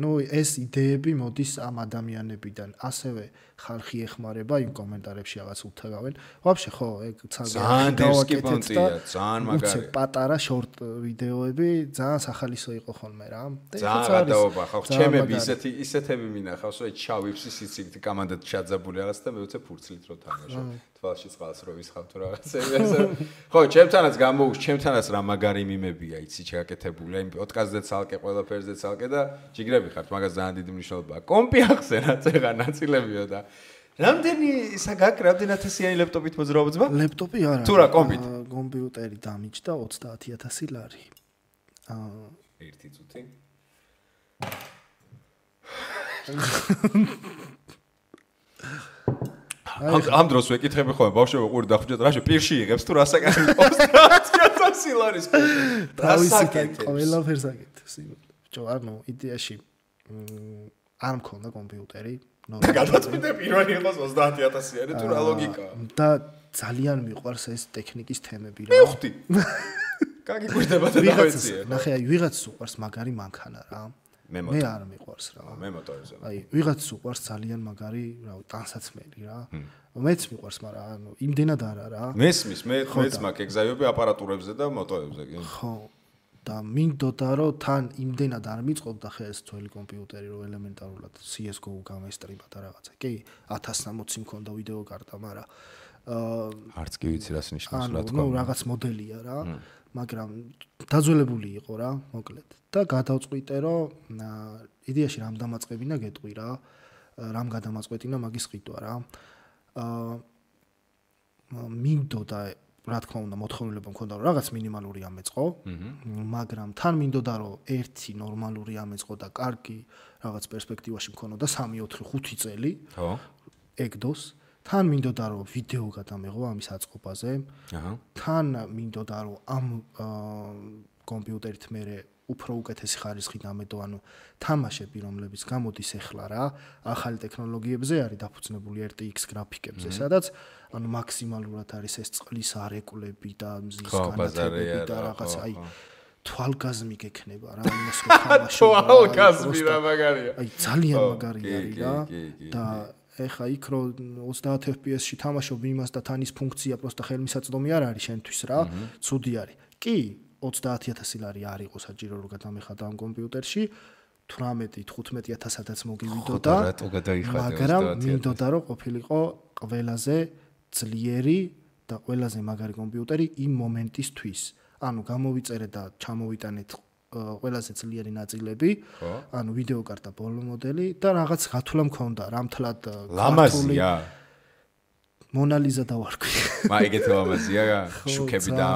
ნუ ეს იდეები მოდის ამ ადამიანებიდან, ასევე ხალხი ეხმარება იმ კომენტარებში რაღაც უთაგავენ. Вообще ხო, ეგ ძალიან დისკიპონტია, ძალიან მაგარი. პატარა შორტ ვიდეოები ძალიან სახალისო იყო ხოლმე რა. ძალიან გადაობა ხო, ჩემები ისეთები მინახავს, რომ ჩავიფსი სიციგით კამანდად ჩაძაბული რაღაც და მე უცებ ფურცლით რო თამაშობ. თვალში წყალს რო ვისხავ თუ რაღაცები ასე. ხო, ჩემთანაც გამოუშვ, ჩემთანაც რა მაგარი მიმებია, იცი ჩაკეთებული. აი პოდკასტზე ცალკე, ყველაფერზე ცალკე და ჯიგრები ხართ, მაგას ძალიან დიდი მნიშვნელობა აქვს. კომპი ახსენა წეღა ნაწილებიო და რამდენი რამდენი ათასიანი ლეპტოპით მოძრაობს ბა? ლეპტოპი არა. თუ რა კომპით? კომპიუტერი დამიჯდა 30000 ლარი. 1 წუთი. ამ დროს ვეკითხები ხოლმე ბავშვები ყური დახუჭეთ რაში პირში იღებს თუ რასაკეთებს 30000 ლარის კომპი. რასაკეთებს? ყველაფერს აკეთებს. ბჭო, ანუ იდეაში არ მქონდა კომპიუტერი. გადაწყვიტე პირველი იყოს 30000-იანი თუ რა ლოგიკაა. და ძალიან მიყვარს ეს ტექნიკის თემები რა. მივხვდი. გაგიკვირდება და დავეციე. ნახე, აი ვიღაცს უყვარს მაგარი მანქანა რა. მე არ მიყვარს რა. მე მოტორზე. აი ვიღაცს უყვარს ძალიან მაგარი, რავი, ტანსაცმელი რა. მეც მიყვარს, მაგრამ ანუ იმდენად არა რა. მესმის, მეც მაქვს ეგზაიები აპარატურებზე და მოტოებზე კი. ხო. და მინდოდა რომ თან იმდენად არ მიწყობდა ხე ეს ძველი კომპიუტერი რომ ელემენტარულად CS:GO გამესტრიმა და რაღაცა. კი 1060 მქონდა ვიდეო კარტა, მაგრამ არც კი ვიცი რას ნიშნავს რა თქმა უნდა. ნუ რაღაც მოდელია რა, მაგრამ დაძველებული იყო რა, მოკლედ. და გადავწყვიტე რომ იდეაში რამ დამაწყებინა გეტყვი რა, რამ გადამაწყვეტინა მაგის ყიდვა რა. მინდოდა რა თქმა უნდა მოთხოვნილება მქონდა რომ რაღაც მინიმალური ამეწყო, მაგრამ თან მინდოდა რომ ერთი ნორმალური ამეწყო და კარგი რაღაც პერსპექტივაში მქონოდა 3-4-5 წელი. ხო. ეგდოს. თან მინდოდა რომ ვიდეო გადამეღო ამის აწყობაზე. თან მინდოდა რომ ამ კომპიუტერით მე უფრო უკეთესი ხარისხი დამედო, ანუ თამაშები რომლებიც გამოდის ახლა რა, ახალი ტექნოლოგიებზე არის დაფუძნებული RTX გრაფიკებზე, სადაც ანუ მაქსიმალურად არის ეს წყლის არეკლები და მზის განათებები და რაღაც აი თვალგაზმი გექნება რა, იმას რო თამაშობ. თვალგაზმი რა მაგარია. აი ძალიან მაგარი არის რა და ეხა იქ რო 30 FPS-ში თამაშობ იმას და თან ის ფუნქცია პროსტა ხელმისაწვდომი არ არის შენთვის რა, ცუდი არის. კი 30000 ლარი არ იყო საჭირო რომ გადამეხადა ამ კომპიუტერში 18-15000-აც მოგივიდოდა, მაგრამ მინდოდა რომ ყოფილიყო ყველაზე ძლიერი და ყველაზე მაგარი კომპიუტერი იმ მომენტისთვის. ანუ გამოვიწერე და ჩამოვიტანეთ ყველაზე ძლიერი ნაწილები, ანუ ვიდეო კარტა ბოლო მოდელი და რაღაც გათვლა მქონდა, რამთლად ლამაზია. მონალიზა დავარქვი. ეგეთ ლამაზია, შუქები და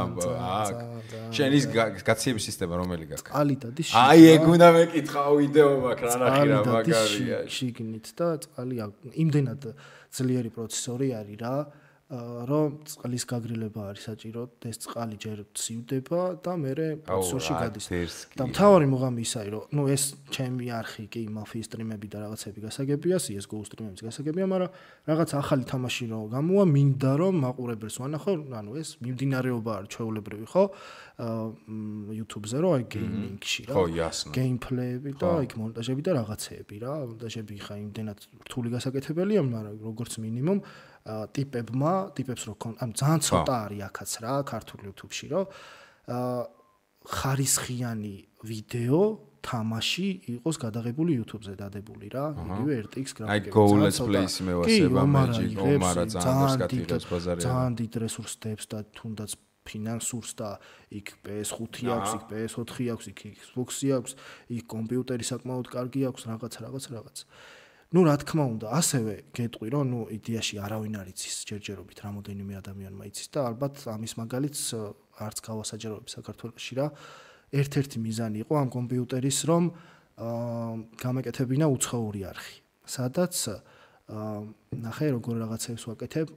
შენ ის გაციების სისტემა რომელი გაქვს? წყალი დადის. აი ეგ უნდა მეკითხა ვიდეო მაქვს რა ნახი რა მაგარია. შიგნით და წყალი იმდენად ძლიერი პროცესორი არის რა. რომ წყლის გაგრილება არის საჭირო, ეს წყალი ჯერ ცივდება და მერე პროცესორში გადის. და მთავარი მუღამი ისაა, რომ ეს ჩემი არხი კი მაფიის სტრიმები და რაღაცები გასაგებია, CS:GO სტრიმებიც გასაგებია, მაგრამ რაღაც ახალი თამაში რო გამოვა, მინდა რომ მაყურებელს ვანახო, ეს მიმდინარეობა არის ჩვეულებრივი, ხო? YouTube-ზე რო აი გეიმინგში რა. გეიმპლეები და იქ მონტაჟები და რაღაცეები რა. მონტაჟები ხა იმდენად რთული გასაკეთებელია, მაგრამ როგორც მინიმუმ ტიპებს რო ძალიან ცოტა არის აქაც რა ქართულ YouTube-ში რო ხარისხიანი ვიდეო თამაში იყოს გადაღებული YouTube-ზე დადებული რა იგივე RTX გრაფიკები აი Go Let's Play-ს მევასება Magic Omara ძალიან გატირებს ბაზარია ძალიან დიდ რესურსებს და თუნდაც ფინანსურს და იქ PS5 აქვს, იქ PS4 აქვს, იქ Xbox-ი აქვს, იქ კომპიუტერი საკმაოდ კარგი აქვს, რაღაც. ნუ რა თქმა უნდა, ასევე გეტყვი, რომ იდეაში არავინ არ იცის ჯერჯერობით რამოდენიმე ადამიანმა იცის და ალბათ ამის მაგალითს არც გავასაჯაროებ საქართველოში რა. ერთ-ერთი მიზანი იყო ამ კომპიუტერის, რომ გამეკეთებინა უცხოური არხი. სადაც ნახე როგორ რაღაცებს ვაკეთებ,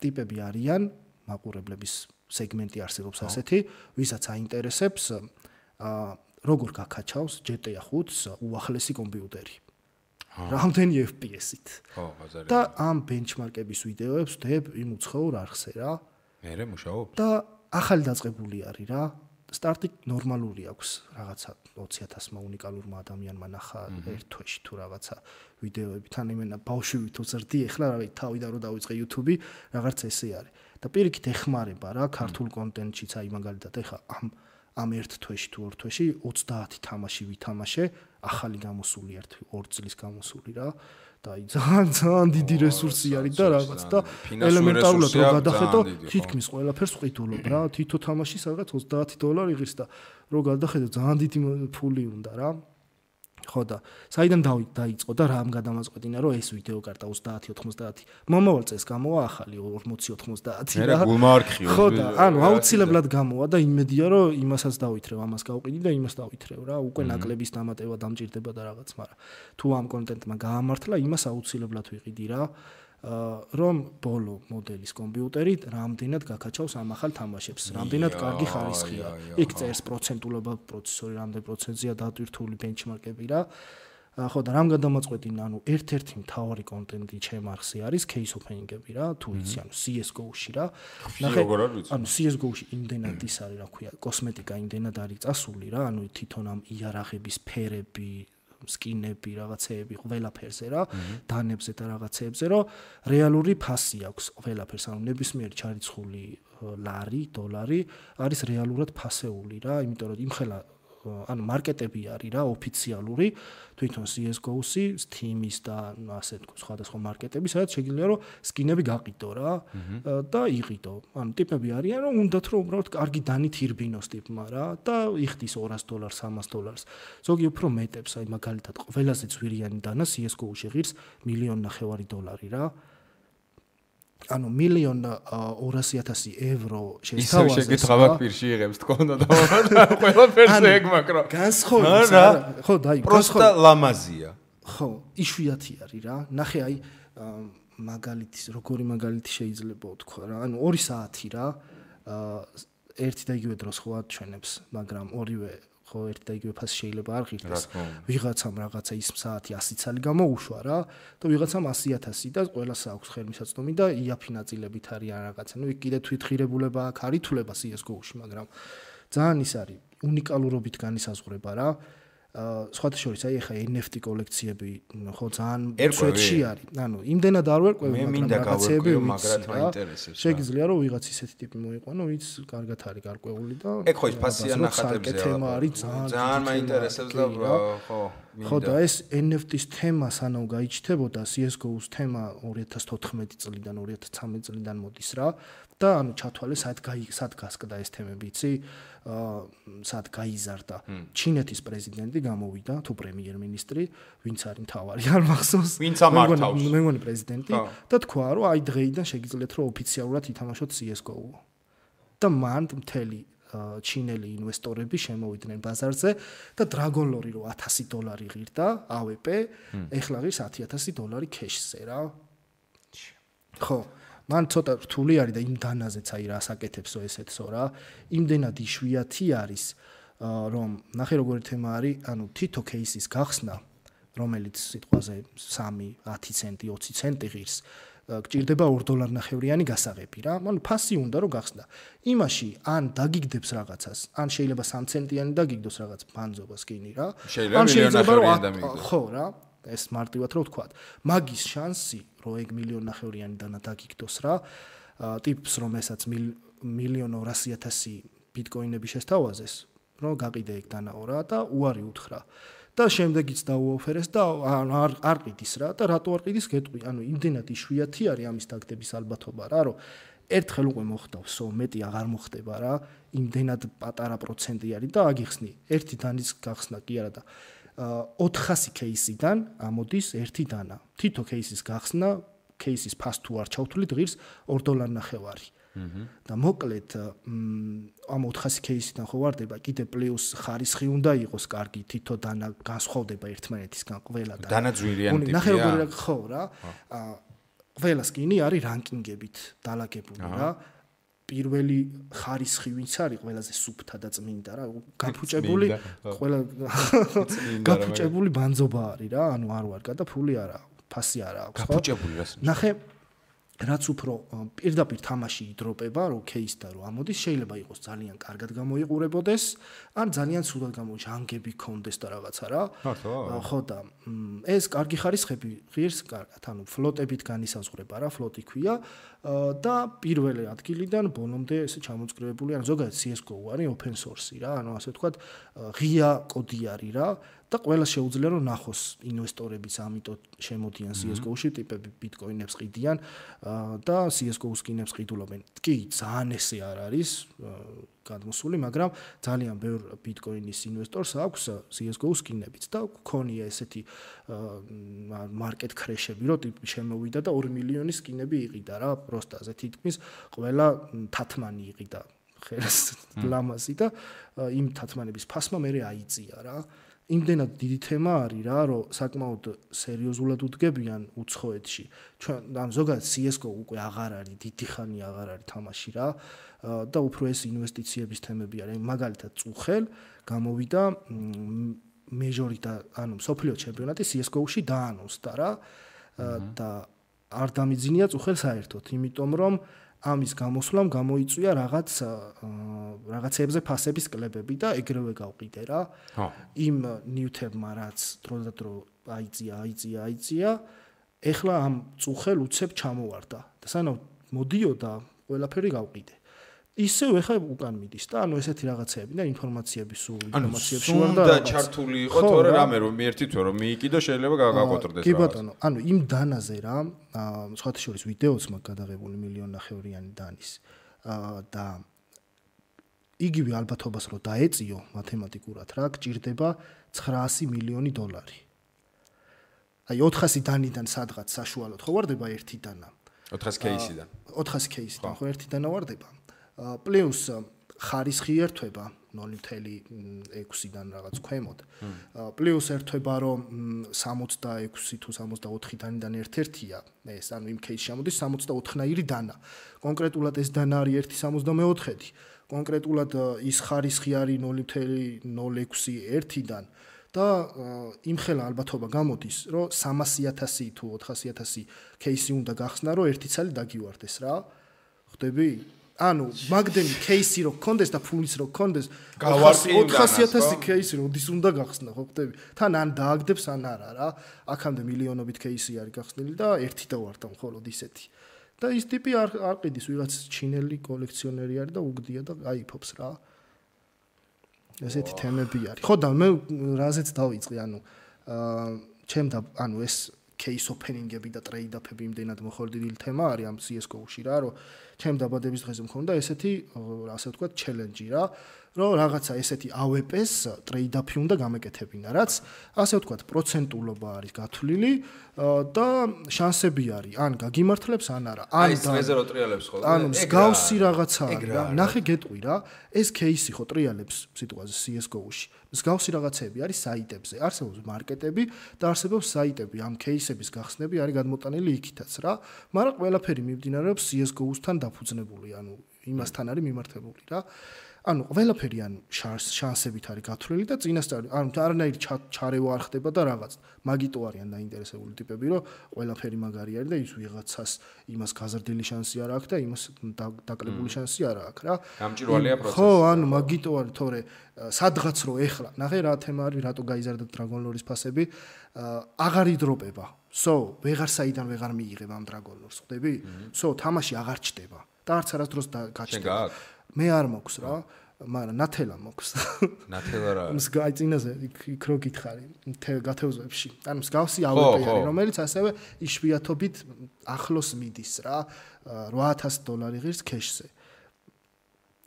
ტიპები არიან, მაყურებლების სეგმენტი არსებობს ასეთი, ვისაც აინტერესებს როგორ გაკაჩავს GTA 5-ს უახლესი კომპიუტერი. რამდენი FPS-ით. და ამ ბენჩმარკების ვიდეოებს ვდებ იმ უცხოურ არხზე რა. მერე მუშაობ. და ახალი დაწყებული არის რა. სტარტი ნორმალური აქვს რაღაცა 20,000-მა უნიკალურმა ადამიანმა ნახა ერთ თვეში თუ რაღაცა ვიდეოები. თან იმენა ბავშვი თუ ზრდი ეხლა რა თავიდან რო დავიწყე YouTube-ი რაღაც ესე არის. და პირიქით ეხმარება რა ქართულ კონტენტშიც აი მაგალითად ეხლა ამ ერთ თვეში თუ ორ თვეში 30 თამაში ვითამაშე ახალი გამოსული 2 წლის გამოსული რა და აი ძალიან დიდი რესურსი არის და რაღაც და ელემენტარულად რო გადახედო თითქმის ყველაფერს ყიდულობ რა თითო თამაში სადღაც $30 იღებს და რო გადახედო ძალიან დიდი ფული უნდა რა ხო და საიდან დაიწყო და რამ გადამაწყვეტინა რომ ეს ვიდეო კარტა 30-90 მომავალ წელს გამოვა ახალი 40-90 რა მე გულმარქი ხო და აუცილებლად გამოვა და იმედია რომ იმასაც დავითრევ ამას გავყიდი და იმას დავითრევ რა უკვე ნაკლების დამატება დამჭირდება და რაღაც მაგრამ თუ ამ კონტენტმა გაამართლა იმას აუცილებლად ვიყიდი რა რომ ბოლო მოდელის კომპიუტერი რამდენად გაკაჩავს ამ ახალ თამაშებს, რამდენად კარგი ხარისხია. იქ წერს პროცენტულობა პროცესორი რამდენ პროცენტზეა დატვირთული ბენჩმარკები რა. ხო და რამ გადამაწყვეტინა, ერთ-ერთი მთავარი კონტენტი ჩემ არხზე არის case opening-ები რა, თუ იცი, CS:GO-ში რა. ნახე, CS:GO-ში იმდენად ის არის, რა ქვია, კოსმეტიკა იმდენად არის წასული რა, თვითონ ამ იარაღების ფერები სკინები რაღაცეები ყველაფერზე რა დანებზე და რაღაცეებზე რომ რეალური ფასი აქვს ყველაფერს ნებისმიერი ჩარიცხული ლარი დოლარი არის რეალურად ფასეული რა იმიტომ რომ იმხელა მარკეტები არის რა ოფიციალური თვითონ CS:GO-სი Steam-ის და ასე თქო სხვადასხვა მარკეტები სადაც შეგიძლია რომ სკინები გაყიდო რა და იყიდო ტიპები არიან რომ უნდათ რომ უბრალოდ კარგი დანით ირბინოს ტიპმა რა და იხდის $200 $300 ზოგი უფრო მეტებს აი მაგალითად ყველაზე ძვირიანი დანა CS:GO-ში ღირს $1,500,000 რა €1,200,000 შესთავაზეს. ისე შეკითხავ პირში იღებს თქონდა და ყველაფერზე ეგ მაკრო. განსხვავებას ხო დაი პროსტა ლამაზია. ხო, იშვიათი არის რა. ნახე აი მაგალითის როგორი მაგალითი შეიძლება ვთქვა რა. 2 საათი რა. ერთი და იგივე დროს ხო აჩვენებს, მაგრამ ორივე ხო ერთი და იგივე ფასი შეიძლება არ ღირდეს. ვიღაცამ რაღაცა ის საათი 100 ცალი გამოუშვა რა და ვიღაცამ 100,000 და ყველას აქვს ხელმისაწვდომი და იაფი ნაწილებით არიან რაღაცა. იქ კიდე თვითღირებულება აქ არის თულება CS:GO-ში, მაგრამ ძალიან ის არის უნიკალურობით განისაზღვრება რა. სხვათა შორის აი ახლა NFT კოლექციები ხო ძალიან სვეტში არის. იმდენად არ ვერკვევი, მაგრამ რაღაცეები ვიცი. შეგიძლია რომ ვიღაც ისეთი ტიპი მოიყვანო, ვინც კარგად არის გარკვეული და ეგ ხო ის ფასიან ნახატებზე თემა არის ძალიან მაინტერესებს და ხო ხო და ეს NFT-ს თემა სანამ გაიჩნდებოდა CS:GO-ს თემა 2014 წლიდან 2013 წლიდან მოდის რა და ჩათვალე სად გასკდა ეს თემები იცი სად გაიზარდა ჩინეთის პრეზიდენტი გამოვიდა თუ პრემიერ-მინისტრი ვინც არის მთავარი არ მახსოვს ვინც ამართავს მე მგონი პრეზიდენტი და თქვა რომ აი დღეიდან შეგიძლიათ რომ ოფიციალურად ითამაშოთ CS:GO და მან მთელი ჩინელი ინვესტორები შემოვიდნენ ბაზარზე და Dragon Lore რო $1,000 ღირდა AWP ეხლა ღირს $10,000 კეშზე რა ხო მან ცოტა რთული არის და იმ დანაზეც აი რა საკეთებსო ესეთსო რა. იმდენად იშვიათი არის, რომ ნახე როგორი თემა არის, ანუ თითო кейსის გახსნა, რომელიც სიტყვაზე 3, 10 ცენტი, 20 ცენტი ღირს, გჭირდება $2.50 გასაღები რა. ანუ ფასი უნდა რომ გახსნა. იმაში ან დაგიგდებს რაღაცას, ან შეიძლება 3 ცენტიანი დაგიგდოს რაღაც ბანძობას კინი რა. ან შეიძლება $1.50 ხო რა. ეს მარტივად რო ვთქვა. მაგის შანსი, რომ ეგ $1.50 დანა დაგიგდოს რა. ტიპს რომ ესაც $1,200,000 ბიტკოინები შესთავაზეს, რომ გაყიდე ეგ დანაო რა და უარი უთხრა. და შემდეგიც დაუოფერეს და არ ყიდის რა და რატო არ ყიდის გეტყვი. ანუ იმდენად იშვიათი არის ამის დაგდების ალბათობა რა, რომ ერთხელ უკვე მოხდავსო, მეტი აღარ მოხდება რა. იმდენად პატარა პროცენტი არის და აგიხსნი. ერთი დანის გახსნა კი არა და 400 кейსიდან ამოდის ერთი დანა. თითო кейსის გახსნა, кейსის ფას თუ არ ჩავთვლით ღირს $2.50. და მოკლედ ამ 400 кейსიდან ხო ვარდება, კიდე პლუს ხარისხი უნდა იყოს კარგი, თითო დანა განსხვავდება ერთმანეთისგან ყველა და დანა ძვირიანი ტიპია. ნახე როგორი ხო რა. ყველა სკინი არის რანკინგებით დალაგებული რა. პირველი ხარისხი ვინც არის ყველაზე სუფთა და წმინდა რა. გაფუჭებული ყველა გაფუჭებული ბანძობა არის რა. ანუ არ ვარ და ფული არა, ფასი არა აქვს ხო? გაფუჭებული რას? ნახე რაც უფრო პირდაპირ თამაში იდროპება, რომ кейსდა რომ ამოდის, შეიძლება იყოს ძალიან კარგად გამოიყურებოდეს, ან ძალიან ცუდად ჟანგები ქონდეს და რაღაცა რა. ხო და ეს კარგი ხარისხები ღირს კარგად, ანუ ფლოტებით განისაზღვრება რა, ფლოტი ქვია და პირველი ადგილიდან ბოლომდე ესე ჩამოწკრივებული, ანუ ზოგადად CS:GO არის open source რა, ანუ ასე ვთქვათ, ღია კოდი არის რა. და ყველა შეუძლია რომ ნახოს ინვესტორებიც ამიტომ შემოდიან CS:GO-ში, ტიპები ბიტკოინებს ყიდიან და CS:GO-ს სკინებს ყიდულობენ. კი, ძალიან ესე არ არის გადმოსული, მაგრამ ძალიან ბევრ ბიტკოინის ინვესტორს აქვს CS:GO-ს სკინებიც და გქონია ესეთი მარკეტ ქრეშები, რომ ტიპი შემოვიდა და 2 მილიონი სკინები იყიდა რა, პროსტაზე თითქმის ყველა თათმანი იყიდა ხელს ლამაზი და იმ თათმანების ფასმა მე აიწია რა. იმდენად დიდი თემა არის რა, რომ საკმაოდ სერიოზულად უდგებიან უცხოეთში. ჩვენ ან ზოგადად CS:GO უკვე აღარ არის, დიდი ხანი აღარ არის თამაში რა და უფრო ეს ინვესტიციების თემები არის. მაგალითად წუხელ გამოვიდა მეჟორი და ანუ სოფლიო ჩემპიონატი CS:GO-ში დაანონსდა რა და არ დამიძინია წუხელ საერთოდ, იმიტომ რომ ამის გამოსვლამ გამოიწვია რაღაცებზე ფასების კლებები და ეგრევე გავყიდე რა. იმ ნიუთებმა რაც დროდადრო აიწია, ეხლა ამ წუხელ უცებ ჩამოვარდა და სანამ მოდიოდა ყველაფერი გავყიდე. ისევ ეხლა უკან მიდის და ანუ ესეთი რაღაცეები და ინფორმაციების სულ ინფორმაციებში ვარ და ჩართული იყო თორე რამე რომ მიერთი თუ რომ მიიკიდო შეიძლება გაგაკოტრდეს რა. კი ბატონო, ანუ იმ დანაზე რა, სხვათა შორის ვიდეოც მაგ გადაღებული $1.50 დანის და იგივე ალბათობას რომ დაეწიო მათემატიკურად რა, გჭირდება $900 მილიონი. აი 400 დანიდან სადღაც საშუალოდ ხო ვარდება ერთი დანა. 400 кейსიდან. 400 кейსიდან ხო ერთი დანა ვარდება. პლუს ხარისხი ერთვება 0.6-დან რაღაც ქვემოთ. პლუს ერთვება რომ 66 თუ 64 დანიდან ერთ-ერთია. ეს ანუ იმ кейსში ამოდის 64-ნაირი დანა. კონკრეტულად ეს დანა არის 1.64-დი. კონკრეტულად ის ხარისხი არის 0.06-1-დან და იმხელა ალბათობა გამოდის, რომ 300,000 თუ 400,000 кейსი უნდა გახსნა, რომ ერთი ცალი დაგივარდეს რა. ხვდები? ანუ მაგდენი кейსი რო გქონდეს და ფულის რო გქონდეს 400,000 кейსი როდის უნდა გახსნა ხო ხვდები თან ან დააგდებს ან არა რა აქამდე მილიონობით кейსი არის გახსნილი და ერთი დავარდა მხოლოდ ისეთი და ის ტიპი არ ყიდის ვიღაც ჩინელი კოლექციონერი არის და უგდია და აიფობს რა ესეთი თემები არის ხო და მე რაზეც დავიწყე ანუ ჩემდა ანუ ეს case opening-ები და trade-up-ები იმდენად მოხორდილი თემა არის ამ CS:GO-ში რა, რომ ჩემ დაბადების დღეზე მქონდა ესეთი, ასე ვთქვათ, challenge-ი რა, რომ რაღაცა ესეთი AWP-ს ტრეიდ-აფი უნდა გამეკეთებინა, რაც ასე ვთქვათ, პროცენტულობა არის გათვლილი და შანსები არის, ან გაგიმართლებს, ან არა. ან ზერო ტრიალებს ხო? ანუ მსგავსი რაღაცა არის რა. ნახე გეტყვი რა, ეს кейსი ხო ტრიალებს სიტყვაზე CS:GO-ში. მსგავსი რაღაცები არის საიტებზე, არსებობს მარკეტები და არსებობს საიტები, ამ кейსების გახსნები არის გადმოტანილი იქითაც რა. მაგრამ ყველაფერი მიმდინარეობს CS:GO-სთან დაფუძნებული, ანუ იმასთან არის მიმართებული რა. ანუ ყველაფერი ან შანსებით არის გათვლილი და წინასწარ ანუ არანაირი ჩარევა არ ხდება და რაღაც მაგიტო არიან დაინტერესებული ტიპები რომ ყველაფერი მაგარი არის და ის ვიღაცას იმას გაზრდილი შანსი არ აქვს და იმას დაკლებული შანსი არ აქვს რა გამჭირვალეა პროცესი ხო ანუ მაგიტო არის თორე სადღაც რო ეხლა ნახე რა თემა არის რატო გაიზარდა Dragon Lore-ის ფასები აღარ იდროპება ვეღარ საიდან ვეღარ მიიღებ ამ Dragon Lore-ს ხვდები თამაში აღარ ჩდება და არც არასდროს გაჩნდება მე არ მოქვს რა, მაგრამ ნათელა მოქვს. ნათელა რა. მსგავსი წინაზე იქ რო გითხარი, გათევზებში. ანუ მსგავსი AWP არის, რომელიც ასევე იშვიათობით ახლოს მიდის რა, $8,000 ღირს ქეშზე.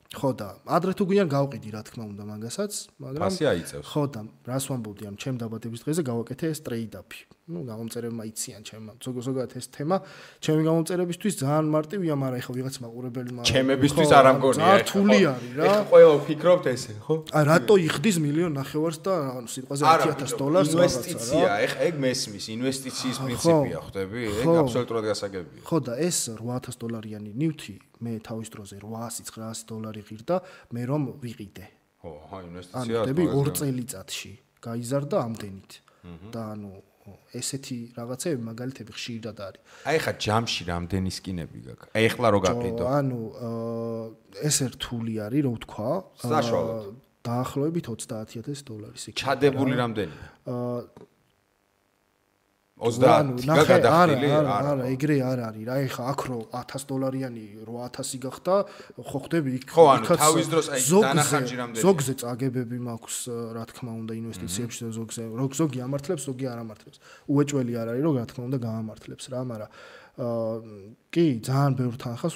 ხო და ადრე თუ გვიან გავყიდი რა თქმა უნდა მაგასაც, მაგრამ ფასი აიწევს. ხო და რას ვამბობდი ამ ჩემ დაბადების დღეზე გავაკეთე ეს ტრეიდ-აფი. ну გამომწერებმა იციან ჩემმა ზოგადად ეს თემა ჩემი გამომწერებისთვის ძალიან მარტივია მაგრამ ეხლა ვიღაც მაყურებელი ჩემებისთვის არ ამგონია ეხლა რთული არის რა ეხლა ყველა ვფიქრობთ ესე ხო რატო იხდის $1,000,000 და ანუ სიტყვაზე $10,000 ინვესტიცია ეხლა ეგ მესმის ინვესტიციის პრინციპია ხვდები ეგ აბსოლუტურად გასაგებია ხო და ეს $8,000-იანი ნივთი მე თავის დროზე $800-900 ღირდა მე რომ ვიყიდე ხო ხა ინვესტიცია ანუ 2 წელიწადში გაიზარდა ამდენით და ანუ ესეთი რაღაცები მაგალითები ხშირად არის. აი ხა ჯამში რამდენი სკინები გაქვს? აი ხლა რო გაყიდო. ანუ ეს რთული არის, რო ვთქვა. საშუალოდ. დაახლოებით $30,000 იქნება. ჩადებული რამდენი? 30 გადახდილი არა ეგრე არ არის რა ეხა აქ რო $1,000-იანი 800 გახდა ხო ხდები იქ ხო ანუ თავის დროს აი დანახარჯი რამდენი ზოგზე წაგებები მაქვს რა თქმა უნდა ინვესტიციებში და ზოგი ამართლებს ზოგი არ ამართლებს უეჭველი არ არის რომ რა თქმა უნდა გაამართლებს რა მაგრამ კი ძალიან ბევრ თანხას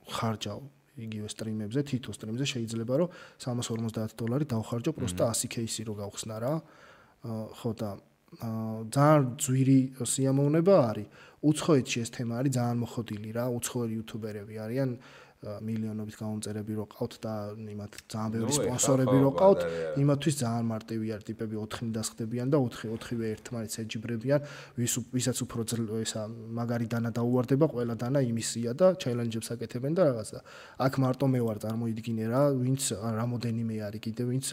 ხარჯავ იგივე სტრიმებზე თითო სტრიმზე შეიძლება რომ $350 დავხარჯო პროსტა 100 кейსი რო გავხსნა რა ხო და ძალიან ძვირი სიამოვნება არის. უცხოეთში ეს თემა არის ძალიან მოხდილი რა. უცხოელი იუთუბერები არიან მილიონობით გამომწერები რო ყავთ და იმათ ძალიან ბევრი სპონსორები რო ყავთ, იმათთვის ძალიან მარტივი არის ტიპები 4 დასხდებიან და 4-ვე ერთმანეთს ეჯიბრებიან, ვისაც უფრო ისა მაგარი დანა დაუვარდება, ყველა დანა იმისია და ჩელენჯებს აკეთებენ და რაღაცა. აქ მარტო მე ვარ წარმოიდგინე რა, ვინც რამოდენიმე არის კიდე ვინც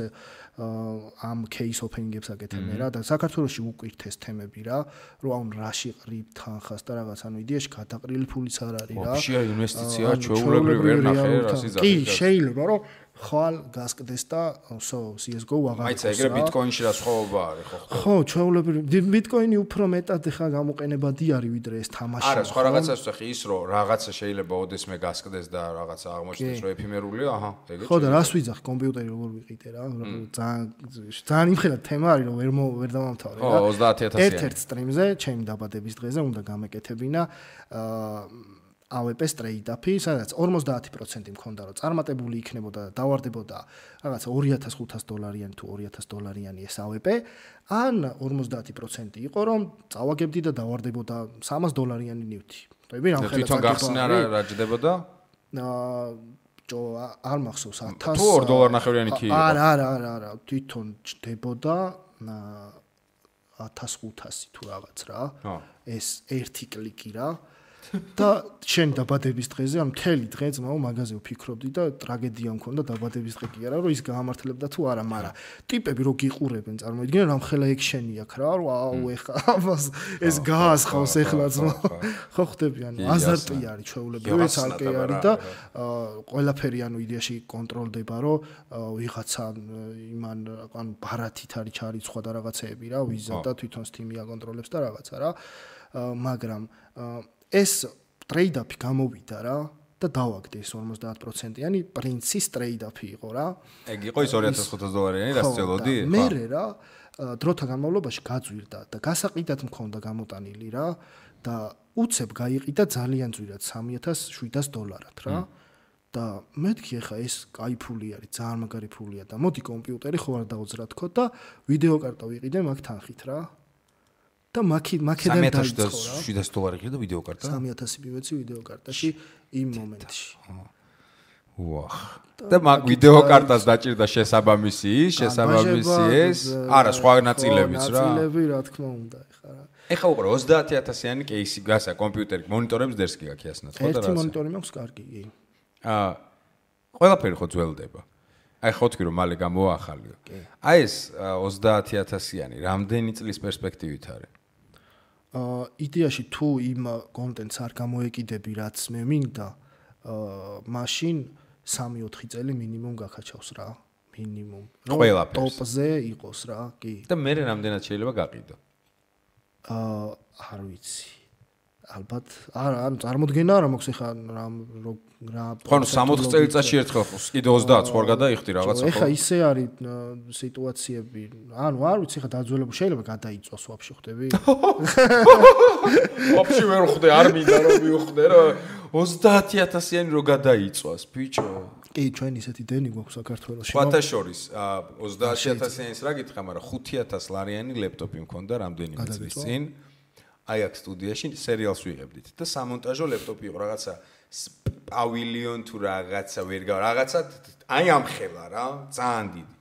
ამ кейს ოპენინგებს აკეთებენ რა და საქართველოში უკვირთ ეს თემები რა, რომ აუნ რაში ყრიბ თანხას და რაღაც ანუ იდეაში გადაყრილი ფულიც არ არის რა. ვაფშე ინვესტიცია ჩვეულებრივი ვერ ნახე რა სიზარდე. კი, შეიძლება რომ ხვალ გასკდეს და CS:GO აღარ. მაიცა ეგრე ბიტკოინში რა სხვაობა არის ხო? ხო, ჩვეულებრივი ბიტკოინი უფრო მეტად ხა გამოყენებადი არის ვიდრე ეს თამაში. არა, სხვა რაღაცას ვთქვი ის რომ რაღაცა შეიძლება ოდესმე გასკდეს და რაღაცა აღმოჩნდეს რომ ეფიმერულია, აჰა, ეგეც. ხო და რას ვიძახ კომპიუტერი როგორ ვიყიდე რა, ძალიან იმხელა თემა არის რომ ვერ დავამთავრე რა. ხო, 30,000-იანი. ერთ-ერთ სტრიმზე ჩემი დაბადების დღეზე უნდა გამეკეთებინა AWP-ს ტრეიდ-აფი, სადაც 50% მქონდა რომ წარმატებული იქნებოდა და დავარდებოდა რაღაცა $2,500-იანი თუ $2,000-იანი ეს AWP, ან 50% იყო რომ წავაგებდი და დავარდებოდა $300-იანი ნივთი. ხდები რამხელა თვითონ გახსნა რა ჯდებოდა? არ მახსოვს 1000 თუ $2.50-იანი კი იყო. არა, თვითონ ჯდებოდა 1500 თუ რაღაც რა. ეს ერთი კლიკი რა. და შენ დაბადების დღეზე ამ მთელი დღე ძმაო მაღაზიო ფიქრობდი და ტრაგედია მქონდა დაბადების დღე კი არა რომ ის გაამართლებდა თუ არა მაგრამ ტიპები რო გიყურებენ წარმოიდგინე რომ ხელა ექშენი აქვს რა რომ აუ ეხა ეს გაასხავს ეხლა ძმაო ხო ხდები ანუ აზარტი არის ჩვეულებრივი ცალკე არის და ყველაფერი ანუ იდეაში კონტროლდება რომ ვიღაცა იმან ანუ ბარათით არის ჩარიცხვა და რაღაცეები რა ვიზა და თვითონ Steam-ი აკონტროლებს და რაღაცა რა მაგრამ ეს ტრეიდ-აფი გამოვიდა რა და დავაგდე ეს 50%-იანი პრინცის ტრეიდ-აფი იყო რა. ეგ იყო ის $2,500-იანი რაც წელოდი? მე რა დროთა განმავლობაში გაძვირდა და გასაყიდად მქონდა გამოტანილი რა და უცებ გაიყიდა ძალიან ძვირად $3,700-ად რა. და მეთქი ახლა ეს კაი ფული არის, ძალიან მაგარი ფულია და მოდი კომპიუტერი ხო არ დაუძრა თქო და ვიდეო კარტა ვიყიდე მაგ თანხით რა. და მაქედან დაიწყო რა. $700 ღირდა ვიდეო კარტა? 3000 მივეცი ვიდეო კარტაში იმ მომენტში. ვახ. და მაგ ვიდეო კარტას დაჭირდა შესაბამისი ეს, არა, სხვა ნაწილებიც რა. ნაწილები რა თქმა უნდა, ეხლა რა. ეხლა უყურე 30000-იანი кейსი გასა კომპიუტერი მონიტორებს დერსკი გაქვს ასნად, ხო და რა. ერთი მონიტორი მაქვს კარგი, კი. ყველაფერი ხო ძველდება. აი ხო თქვი რომ მალე გამოაახალიო. აი ეს 30000-იანი რამდენი წლის პერსპექტივით არის? იდეაში თუ იმ კონტენტს არ გამოეკიდები, რაც მე მინდა, მაშინ 3-4 წელი მინიმუმ გაქაჩავს რა, მინიმუმ. ტოპზე იყოს რა, კი. და მე რამდენად შეიძლება გაყიდო? არ ვიცი. ალბათ არა, წარმოდგენა არა მაქვს ეხა რა ხო 60 წელიწადში ერთხელ კიდე 30 ხო არ გადაიხდი რაღაცა ხო? ეხა ისე არის სიტუაციები, ანუ არ ვიცი ეხა დაძველებული შეიძლება გადაიწვას ვაფშე ხვდები? ვაფშე ვერ ხვდე, არ მინდა რომ მივხვდე რა 30000-იანი რო გადაიწვას, ბიჭო. კი, ჩვენ ისეთი დენი გვაქვს საქართველოში. სხვათა შორის 30000-იანის რა გითხრა, მაგრამ 5000 ლეპტოპი მქონდა რამდენიმე წლის წინ. აი აქ სტუდიაში სერიალს ვიღებდით და სამონტაჟო ლეპტოპი იყო რაღაცა პავილიონ თუ რაღაცა რაღაცა აი ამხელა რა ძალიან დიდი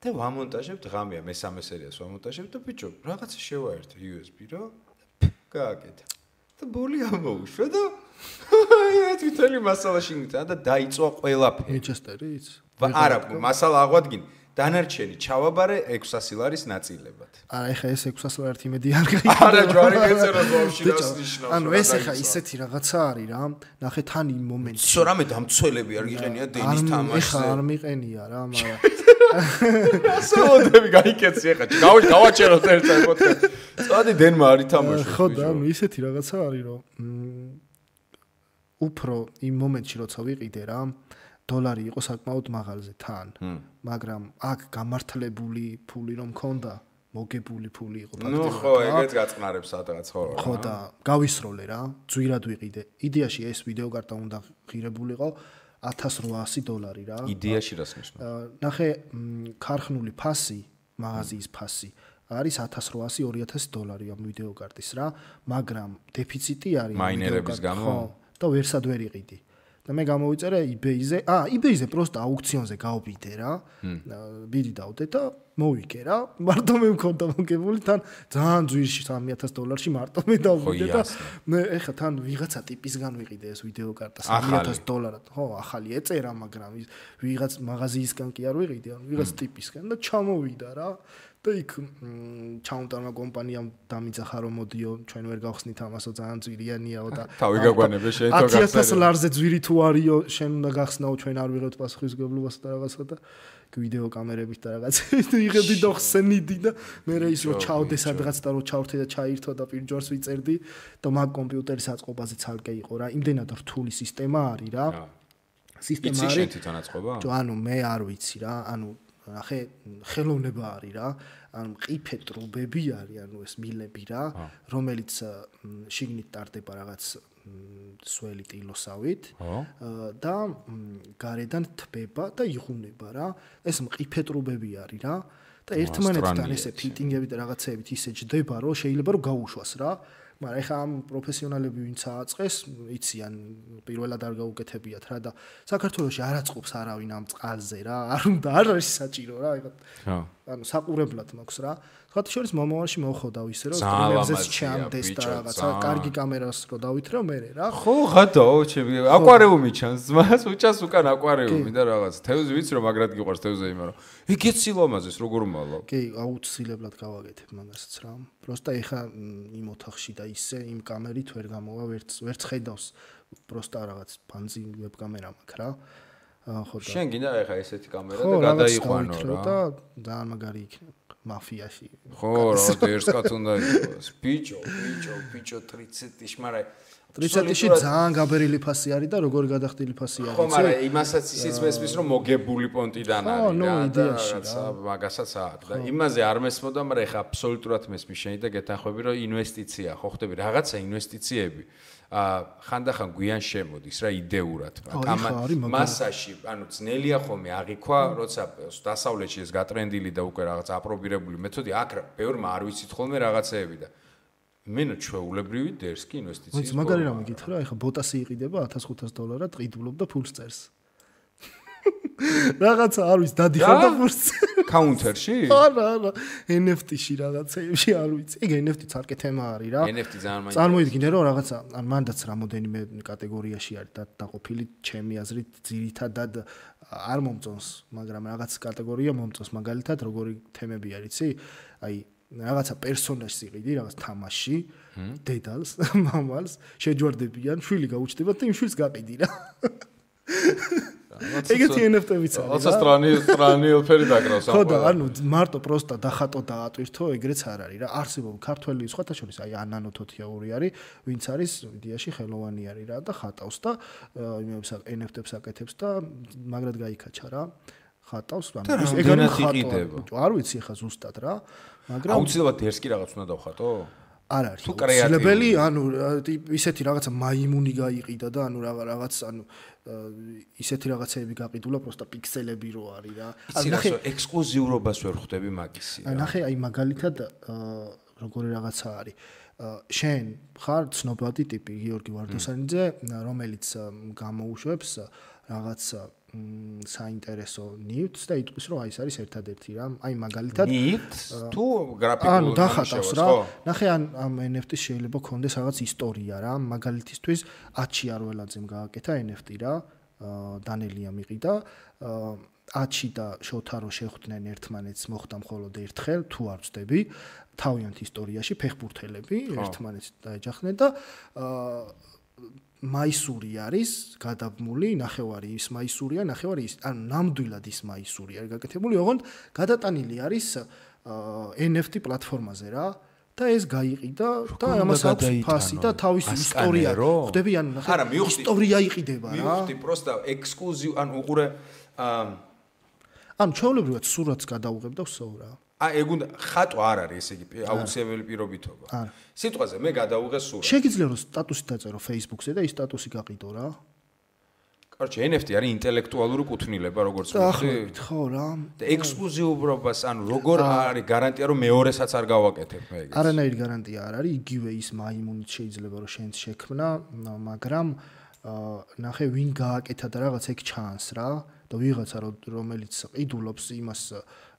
და ვამონტაჟებთ ღამეა მესამე სერიას ვამონტაჟებთ და ბიჭო რაღაცა შევაერთე USB რო გააკეთა და ბოლი ამოუშვა და აი თვითონი მასალაში გიტა და დაიწვა ყველაფერი ვინჩესტერიც არა მასალა აღვადგინ დანარჩენი ჩავაბარე 600 ლარის ნაწილებად. არა, ეხა ეს 600 ლარით იმედი არ გაიგო. არა, ჯვარი მეწეროს ვაფშე დასნიშნავს. ანუ ეს ეხა ისეთი რაღაცა არის რა. ნახე თან იმ მომენტში. სო რამე დამცველები არ გიყენია დენის თამაშზე. ეხა არ მიყენია რა, მაგრამ სოლოდები გაიკეთე ეხა. გავაჩეროთ ერთად პოდკასტ. წადი დენმა არ ითამაშოს. ხო და ანუ ისეთი რაღაცა არის რომ უფრო იმ მომენტში როცა ვიყიდე რა $1 იყო საკმაოდ მაღალზე თან, მაგრამ აქ გამართლებული ფული რომ მქონდა, მოგებული ფული იყო ფაქტობრივად. ნუ ხო, ეგეც გაწყნარებს სადღაც ხო. ხო და გავისროლე რა, ძვირად ვიყიდე. იდეაში ეს ვიდეო კარტა უნდა ღირებულიყო $1800 რა. იდეაში რას ნიშნავს? ნახე, ქარხნული ფასი, მაღაზიის ფასი არის $1800-2000 ამ ვიდეო კარტის რა, მაგრამ დეფიციტი არის მაინერების გამო და ვერსად ვერ იყიდი. და მე გამოვიწერე eBay-ზე, eBay-ზე პროსტა აუქციონზე გავბიდე რა. ბიდი დავდე და მოვიკე რა. მარტო მე მქონდა მოგებული თან ძალიან ძვირში $3000-ში მარტო მე დავბიდე და მე ეხა თან ვიღაცა ტიპისგან ვიყიდე ეს ვიდეო კარტა $3000. ხო, ახალი ეწერა, მაგრამ ვიღაც მაღაზიისგან კი არ ვიყიდე, ანუ ვიღაც ტიპისგან და ჩამოვიდა რა. და იქ ჩაუნტარმა კომპანიამ დამიძახა რომ მოდიო ჩვენ ვერ გავხსნით ამასო ძალიან ძვირიანიაო და თავი გაგვანებე შენ თო გახსნა $10,000 ლარზე ძვირი თუ არისო შენ უნდა გახსნაო ჩვენ არ ვიღებთ პასუხისმგებლობას და რაღაცა და ვიდეო კამერებით და რაღაცებით იღებდი და ხსენიდი და მე ის რო ჩავდე სადღაც და რო ჩავრთე და ჩაირთო და პირჯორს ვიწერდი და მაგ კომპიუტერის აწყობაზე ცალკე იყო რა იმდენად რთული სისტემა არის რა სისტემა არის შენ თვითონ აწყობა? ანუ მე არ ვიცი რა ანუ ნახე ხელოვნება არის რა ანუ მყიფე ტრუბები არის ანუ ეს მილები რა რომელიც შიგნით ტარდება რაღაც სველი ტილოსავით და გარედან თბება და იღუნება რა ეს მყიფე ტრუბები არის რა და ერთმანეთთან ესე ფიტინგები და რაღაცეებით ისე ჯდება რომ შეიძლება რომ გაუშვას რა მაგრამ ეხა ამ პროფესიონალები ვინც ააწყეს იციან პირველად არ გაუკეთებიათ რა და საქართველოში არ აწყობს არავინ ამ წყალზე რა არ უნდა არ არის საჭირო რა ეხა ანუ საყურებლად მაქვს რა სხვათა შორის მომავალში მოხდა ისე რომ სტრიმერზეც ჩანდეს და რაღაცა კარგი კამერას რო დავითრევ მე რა ხო ღადაო ჩემი აკვარიუმი ჩანს ძმას უჭას უკან აკვარიუმი და რაღაც თევზი ვიცი რომ მაგრად გიყვარს თევზი იმარო იგეც სილამაზეს როგორ მალავ კი აუცილებლად გავაკეთებ მაგასაც რა პროსტა ეხა იმ ოთახში და ისე იმ კამერით ვერ გამოვა ვერც ხედავს პროსტა რაღაც ფანძი ვებკამერა მაქვს რა ხო და შენ გინდა ეხა ესეთი კამერა და გადაიყვანო რა და ძალიან მაგარი იქნება მაფიაში ხო რა ერთად უნდა იყოს ბიჭო 30-ში მაგრამ 30-ში ძალიან გაბერილი ფასი არის და როგორი გადახდილი ფასი არის ხო მაგრამ იმასაც ისიც მესმის რომ მოგებული პონტიდან არის რა და რაღაცა მაგასაც აქვს და იმაზე არ მესმოდა მაგრამ ეხა აბსოლუტურად მესმის შენი და გეთანხმები რომ ინვესტიცია ხო ხდები რაღაცა ინვესტიციები ხანდახან გვიან შემოდის რა იდეურად, მაგრამ მასაში, ანუ ძნელია ხოლმე აღიქვა, როცა დასავლეთში ეს გატრენდილი და უკვე რაღაც აპრობირებული მეთოდი, აქ ბევრმა არ ვიცით ხოლმე რაღაცეები და მენო ჩვეულებრივი დერსკი ინვესტიციის. მაგარი რამე გითხრა, ეხა ბოტასი იყიდება $1500 ყიდულობდა ფულს წერს. რაღაცა არ ვიცი დადიხარდა ფულს. კაუნტერში? არა, NFT-ში რაღაცეებში არ ვიცი. ეგ NFT-ც არკე თემა არის რა. NFT ძალიან მაინტერესებს. წარმოიდგინე რომ რაღაცა ან მანდაც რამოდენიმე კატეგორიაში არის დაყოფილი, ჩემი აზრით ძირითადად არ მომწონს, მაგრამ რაღაც კატეგორია მომწონს, მაგალითად როგორი თემები არის, იცი? აი რაღაცა პერსონაჟს იყიდი, რაღაც თამაში, დედალს, მამალს, შეჯვარდებიან, შვილი გაუჩნდება და იმ შვილს გაყიდი რა. ეგეთი NFT-ვიც არის. როცა სტრანი ელფერი დაგრავს. ხო და ანუ მარტო პროსტა დახატო და ატვირთო, ეგრეც არ არის რა. არსებობს ქართველი სხვათა შორის აი ანანო თოთიაური არის, ვინც არის იდეაში ხელოვანი არის რა და ხატავს და იმებს NFT-ებს აკეთებს და მაგრად გაიქაჩა რა. ხატავს, ანუ ეგ არის ხატვა. არ ვიცი ხა ზუსტად რა, მაგრამ აუცილებლად დერსკი რაღაც უნდა დავხატო? არ არის. აუცილებელი, ანუ ისეთი რაღაცა მაიმუნი გაიყიდა და ანუ რაღაც ანუ ისეთი რაღაცეები გაყიდულა, პროსტა პიქსელები რო არის რა. ანუ ნახე ექსკლუზიურობას ვერ ხვდები მაგისი რა. ნახე აი მაგალითად როგორი რაღაცა არის. შენ ხარ ცნობადი ტიპი გიორგი ვარდოსანიძე, რომელიც გამოუშვებს რაღაც საინტერესო ნივთს და იტყვის რომ აი ეს არის ერთადერთი რა. აი მაგალითად ნივთს თუ გრაფიკულ ანუ დახატავს რა. ნახე ამ NFT-ს შეიძლება ქონდეს რაღაც ისტორია რა. მაგალითისთვის აჩი არველაძემ გააკეთა NFT რა. დანელია მიყიდა. აჩი და შოთარო შეხვდნენ ერთმანეთს, მოხდა მხოლოდ ერთხელ, თუ არ ვწდები, თავიანთ ისტორიაში ფეხბურთელები ერთმანეთს დაეჯახნენ და მაისური არის გადაბმული, ნახევარი ის მაისურია, ნახევარი ის, ანუ ნამდვილად ის მაისური არის გაკეთებული, ოღონდ გადატანილი არის NFT პლატფორმაზე რა და ეს გაიყიდა და ამას აქვს ფასი და თავისი ისტორია. ხვდები, ანუ ნახე, ისტორია იყიდება რა. მივხვდი, პროსტა ექსკლუზივ, ანუ უყურე ანუ ჩვეულებრივად სურათს გადაუღებ და ვსოვ რა. ეგ უნდა ხატვა არ არის ესე იგი აუცილებელი პირობითობა. სიტყვაზე მე გადაუღე სურათს. შეგიძლია რომ სტატუსი დაწერო Facebook-ზე და ის სტატუსი გაყიდო რა. კაროჩე NFT არის ინტელექტუალური კუთვნილება როგორც ვთქვი. ხო რა. და ექსკლუზიურობას ანუ როგორ არის გარანტია რომ მეორესაც არ გავაკეთებ მე ეგეც. არანაირი გარანტია არ არის, იგივე ის მაიმუნით შეიძლება რომ შენც შექმნა, მაგრამ ნახე ვინ გააკეთა და რაღაც ეგ ჩანს რა და ვიღაცა რომელიც ყიდულობს იმას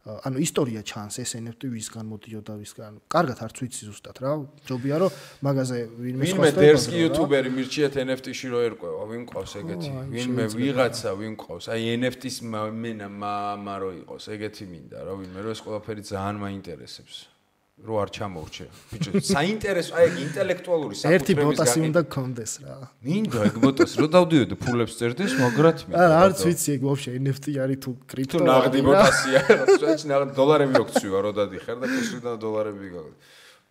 ანუ ისტორია ჩანს ეს NFT ვისგან მოდიოდა ვისგან. კარგად არც ვიცი ზუსტად რა. ჯობია რომ მაგაზე ვინმე სხვა დერსკი იუთუბერი მირჩიეთ NFT-ში რო ერკვევა, ვინ ყავს ეგეთი? ვინმე ვიღაცა ვინ ყავს? აი NFT-ს მენა მამა რო იყოს, ეგეთი მინდა რა, ვინმე რო ეს ყველაფერი ძალიან მაინტერესებს. რო არ ჩამოვრჩე. ბიჭო, საინტერესო, აი ეგ ინტელექტუალური საკუთრების ერთი ბოტასი უნდა გქონდეს რა. მინდა ეგ ბოტასი, რო დავდიოდე ფულებს წერდეს, მაგრად მინდა. არც ვიცი ეგ ვაფშე NFT არის თუ კრიპტო. თუ ნაღდი ბოტასია, რაც ნაღდი დოლარები როქცვივა, რო დადიხარ და კუსრიდან დოლარები გაგ.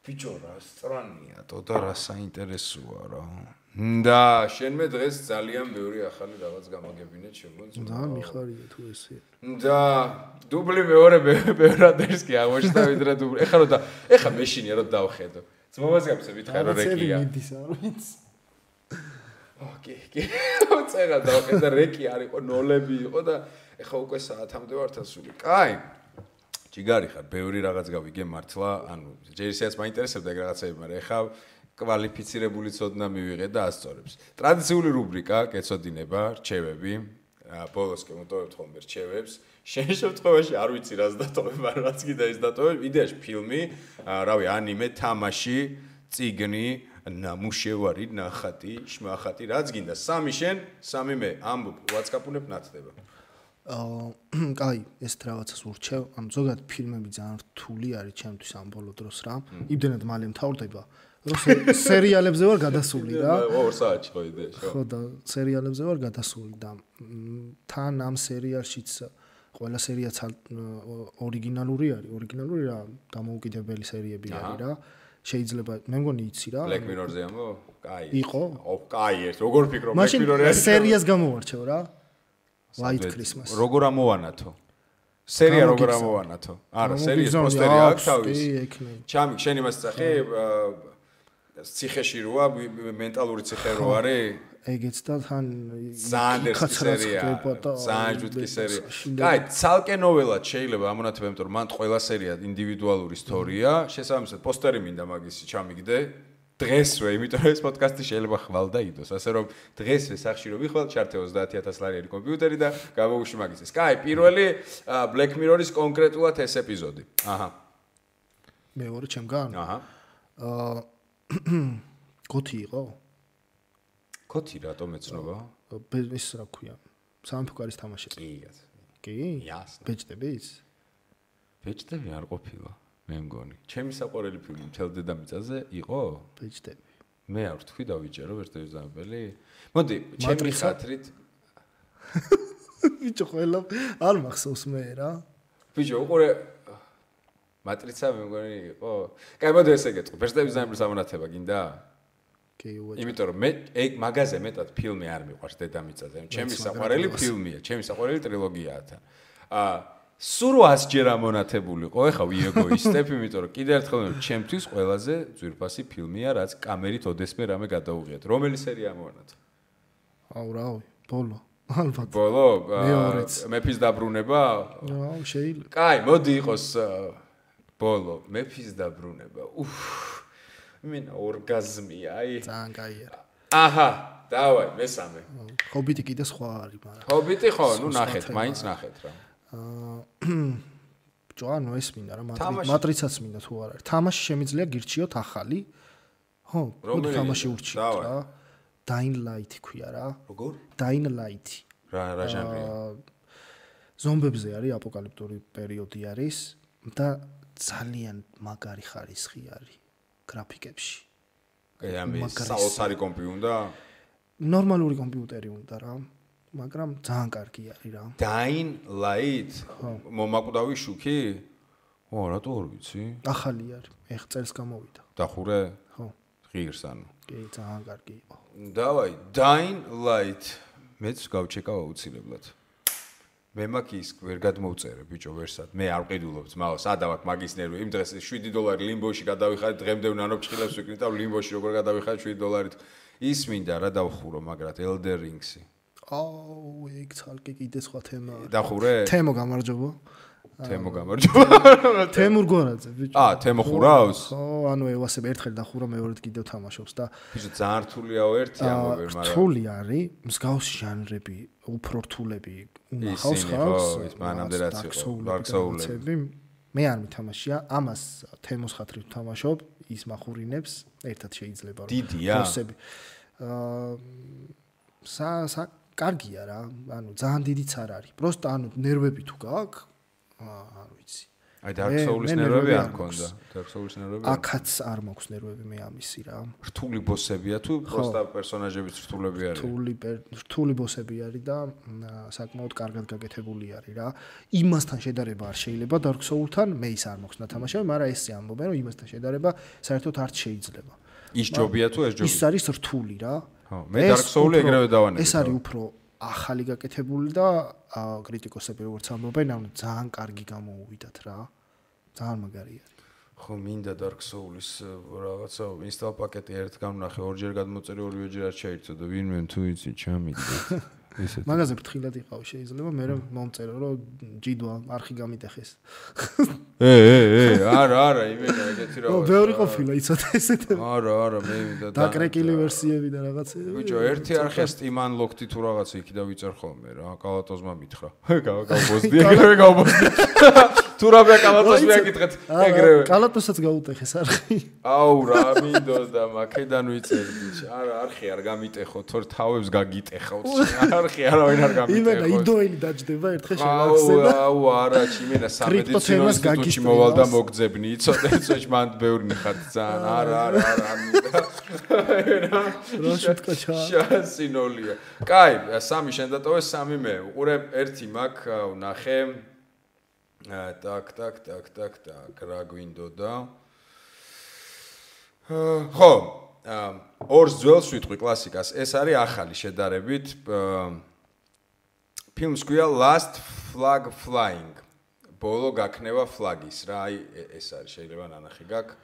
ბიჭო, რა სტრანია, და რა საინტერესოა რა. და შენმე დღეს ძალიან ბევრი ახალი რაღაც გამაგებინეთ შემოწმდა. და მიხარია თუ ესე. და დუბლი მეორე ბევრადერსკი აღმოჩნდა ვიდრე დუბლი. ეხლა მეშინია რომ დავხედო. ძმობაზე გაფსე ვითხარ რომ რეკია. ოკეი. წერა დავხედა რეკი არისო, ნოლები იყო და ეხლა უკვე საათამდე ვართ ასული. კაი. ჯიგარი ხარ, ბევრი რაღაც გავიგე მართლა, ანუ ჯერისეც მაინტერესებდა ეგ რაღაცები, მაგრამ ეხლა კვალიფიცირებული ცოდნა მივიღე და ასწორებს. ტრადიციული რუბრიკა, კეცოდინება, რჩევები. ბოლოს კი მოტოვებთ ხოლმე რჩევებს. შენ შემთხვევაში არ ვიცი რას დატოვებ, მაგრამ რაც კიდე ის დატოვებ, იდეაში ფილმი, რავი, ანიმე, თამაში, წიგნი, ნამუშევარი, ნახატი, შმახატი, რაც გინდა. სამი შენ, სამი მე, ამბობ, WhatsApp-უნებ ნათდება. კაი, ეს რაღაცას ურჩევ. ანუ ზოგადად ფილმები ძალიან რთული არის ჩემთვის ამ ბოლო დროს რა. იმდენად მალე მთავრდება. რომ სერიალებზე ვარ გადასული რა. 2 საათში ხო იდეაში. ხო და სერიალებზე ვარ გადასული და თან ამ სერიალშიც ყველა სერიაც ორიგინალური არის. ორიგინალური რა, დამოუკიდებელი სერიები არის რა. შეიძლება მე მგონი იცი რა. Black Mirror-ზე ამბო? კაი. იყო? კაი, როგორ ფიქრობ Black Mirror-ი? მაშინ სერიას გამოვარჩევ რა. White Christmas. როგორ ამოვანათო? სერია როგორ ამოვანათო? არა, სერიის პოსტერი აქვს თავის. ჩამი, შენ იმას წახი ციხეში როა მენტალური ციხე რო არის? ეგეც და თან ზანდერსკი სერია. ზანჯუტკი სერია. კაი, ცალკე ნოველად შეიძლება ამონათება, იმიტომ რომ მან ყველა სერია ინდივიდუალური ისტორია, შესაბამისად პოსტერი მინდა მაგისი ჩამიგდე. დღესვე, იმიტომ რომ ეს პოდკასტი შეიძლება ხვალ და იდოს, ასე რომ დღესვე სახში რომ ვიხვალ, ჩართე 30000 ლარიანი კომპიუტერი და გამოვუშვი მაგისის. კაი, პირველი Black Mirror-ის კონკრეტულად ეს ეპიზოდი. აჰა. მეორე ჩემგან? აჰა. გოთი იყო? გოთი რატომ ეცნობა? ის რა ქვია? სამეფო კარის თამაში. კი, კაცო. კი? იასნა. ბეჭდების? ბეჭდები არ ყოფილა. მე მგონი. ჩემი საყვარელი ფილმი მთელ დედამიწაზე იყო? ბეჭდები. მე არ ვთქვი დავიჭერო ბეჭდების დამებელი. მოდი, ჩემი ხათრით. ბიჭო, ყველა არ მახსოვს მე რა. ბიჭო, უყურე მატრიცა მე მგონი იყო. კაი, მოდი ესე გეტყვი. ბეჭდების დამბლის ამონათება გინდა? კი, უაჭ. იმიტომ რომ მე ეგ მაგაზე მეტად ფილმი არ მიყვარს დედამიწაზე. ჩემი საყვარელი ფილმია, ჩემი საყვარელი ტრილოგიაა თან. სულ 100 ჯერ ამონათებულიყო, ეხა ვიეგოისტებ, იმიტომ რომ კიდევ ერთხელ ჩემთვის ყველაზე ძვირფასი ფილმია, რაც კამერით ოდესმე რამე გადაუღიათ. რომელი სერია ამონათ? აუ რავი, ბოლო. ალბათ. ბოლო? მეორეც. მეფის დაბრუნება? აუ, შეიძლება. კაი, მოდი იყოს ბოლო, მეფის დაბრუნება. იმენა ორგაზმია, აი. ძალიან კაია. აჰა, დავაი, მესამე. ჰობიტი კიდე სხვა არის, მაგრამ. ჰობიტი ხო, ნუ ნახეთ, მაინც ნახეთ რა. ჯოანო ეს მინდა რა მატრიცაც მინდა თუ არ არის. თამაში შემიძლია გირჩიოთ ახალი. ხო, მოდი თამაში ურჩიოთ რა. Dying Light ქვია რა. როგორ? Dying Light. რა ჟანრია? ზომბებზე არის, აპოკალიფტური პერიოდი არის და ძალიან მაგარი ხარისხი არის გრაფიკებში. აი, ამის საოცარი კომპი უნდა? ნორმალური კომპიუტერი უნდა რა. მაგრამ ძალიან კარგი არის რა. Dying Light? მომაკვდავი შუქი? ო, რატო არ ვიცი? ახალი არის. ეხ წელს გამოვიდა. დახურე? ხო. ღირს ანუ. კი, ძალიან კარგი იყო. დავაი, Dying Light. მეც გავჩეკავ აუცილებლად. მე მაგის ვერ გადმოვწერე ბიჭო ვერსად. მე არ ვყიდულობ ძმაო, სადავ აქ მაგის ნერვი. იმ დღეს $7 ლიმბოში გადავიხადე, დღემდე ნანოფჭილებს ვიკრით და ლიმბოში როგორ გადავიხადე $7. ის მინდა რა დავხურო, მაგრად Elden Ring-ი. აუ, ეგ ცალკე კიდე სხვა თემაა. დახურე? თემო გამარჯობა. თემო გამარჯობა. თემურ გორაძე, ბიჭო. თემო ხურავს? ხო, ანუ ევასებ ერთხელ დახურა, მეორედ კიდევ თამაშობს და ბიჭო, ძალიან რთულია ერთი ამოვერ, მაგრამ რთული არის, მსგავსი ჟანრები, უფრო რთულები უნახავს ხალხს. ის მანამდე რაც იყო, Dark Souls-ები. მე არ მითამაშია, ამას თემოს ხათრით ვთამაშობ, ის מחურინებს, ერთად შეიძლება რომ ბოსები. კარგია რა, ანუ ძალიან დიდიც არ არის. პროსტა ანუ ნერვები თუ გაქვს, არ ვიცი. აი Dark Souls-ის ნერვები არ მქონდა. Dark Souls-ის ნერვები. აქაც არ მაქვს ნერვები მე ამისი რა. რთული ბოსებია თუ პროსტა პერსონაჟებიც რთულები არის? რთული ბოსები არის და საკმაოდ კარგად გაკეთებული არის რა. იმასთან შედარება არ შეიძლება Dark Souls-თან, მე ის არ მაქვს ნათამაშები, მაგრამ ესე ამბობენ რომ იმასთან შედარება საერთოდ არ შეიძლება. ის ჯობია თუ ეს ჯობია? ის არის რთული რა. ხო, მე Dark Souls-ი ეგრევე დავანებე. ეს არის უფრო ახალი გაკეთებული და კრიტიკოსები როგორც ამბობენ, ანუ ძალიან კარგი გამოუვიდათ რა. ძალიან მაგარია. ხო, მინდა Dark Souls-ის რაღაცა ინსტალ პაკეტი ერთ გამნახე, ორჯერ გადმოწერე, ორივეჯერ არ შეირთო და ვინმე თუ იცი ჩამიგდეთ. ისეთ. მაგაზე ფრთხილად იყავ შეიძლება, მე მომწერო რომ ჯიდვა არხი გამიტეხეს. არა, იმენა ეგეთი რა. ბევრი ყოფილა იცოდი ესეთი. არა, მე მინდა დაკრეკილი ვერსიები და რაღაცები. ბიჭო, ერთი არხია Steam Unlocked თუ რაღაცა იქიდან ვიწერ ხოლმე რა. კალატოზმა მითხრა. გავბოსდი, ეგრევე გავბოსდი. თუ რა კალატოს მეაკითხეთ, ეგრევე. კალატოსაც გაუტეხეს არხი. აუ რა მინდოდა, მაქედან ვიწერ ბიჭო. არა, არხი არ გამიტეხო, თორ თავებს გაგიტეხავთ. არხი არავინ არ გამიტეხო. იმენა იდოელი დაჯდება ერთხელ შევახსენა. აუ არა, იმენა სამედიცინო ინსტიტუტში მოვალ და მოგძებნი, იცოდე, მან ბევრი ხარ ძალიან. არა, მინდა. რა შეთქაჩა. შანსინოლია. კაი, სამი შენ დატოვე, სამი მე. უყურე, ერთი მაქვს, ვნახე. Так, რა გვინდოდა? ხო, ორს ძველს ვიტყვი კლასიკას. ეს არის ახალი შედარებით. ფილმს ქვია Last Flag Flying. ბოლო გაქნება ფლაგის რა. აი ეს არის, შეიძლება ნანახი გაქვს.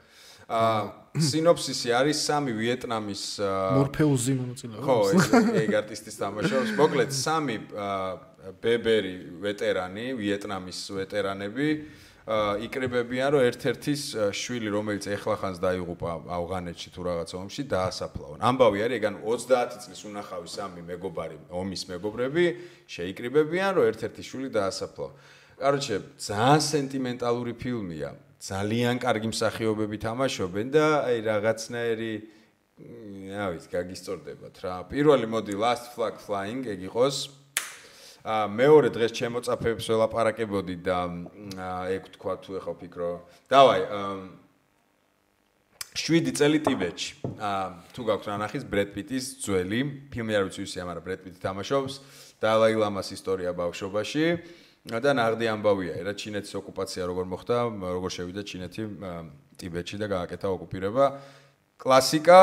სინოფსისი არის 3 ვიეტნამის მორფეუზი მონაწილეობა. ხო, ეგ არტისტის თამაშობს. მოკლედ 3 ბებერი ვეტერანი, ვიეტნამის ვეტერანები იკრიბებიან, რომ ერთ-ერთის შვილი, რომელიც ეხლახანს დაიღუპა ავღანეთში თუ რაღაც ომში, დაასაფლავონ. ამბავი არის, ეგ ანუ 30 წლის უნახავი 3 მეგობარი, ომის მეგობრები შეიკრიბებიან, რომ ერთ-ერთი შვილი დაასაფლავონ. კაროჩე, ძალიან სენტიმენტალური ფილმია. ძალიან კარგი მსახიობები თამაშობენ და აი რაღაცნაირი რა ვიცი, გაგისწორდებათ რა. პირველი მოდი Last Flag Flying ეგ იყოს. მეორე დღეს ჩემოწაფეებს ველაპარაკებოდი და ეგ თქვა თუ ეხა ვფიქრო. დავაი 7 წელი ტიბეტში. თუ გაქვთ რა ნახის ბრედ პიტის ძველი ფილმი არ ვიცი ვისია, მაგრამ ბრედ პიტი თამაშობს დალაი ლამას ისტორია ბავშვობაში. და ნაღდი ამბავია, რა ჩინეთის ოკუპაცია როგორ მოხდა, როგორ შევიდა ჩინეთი ტიბეტში და გააკეთა ოკუპირება. კლასიკა,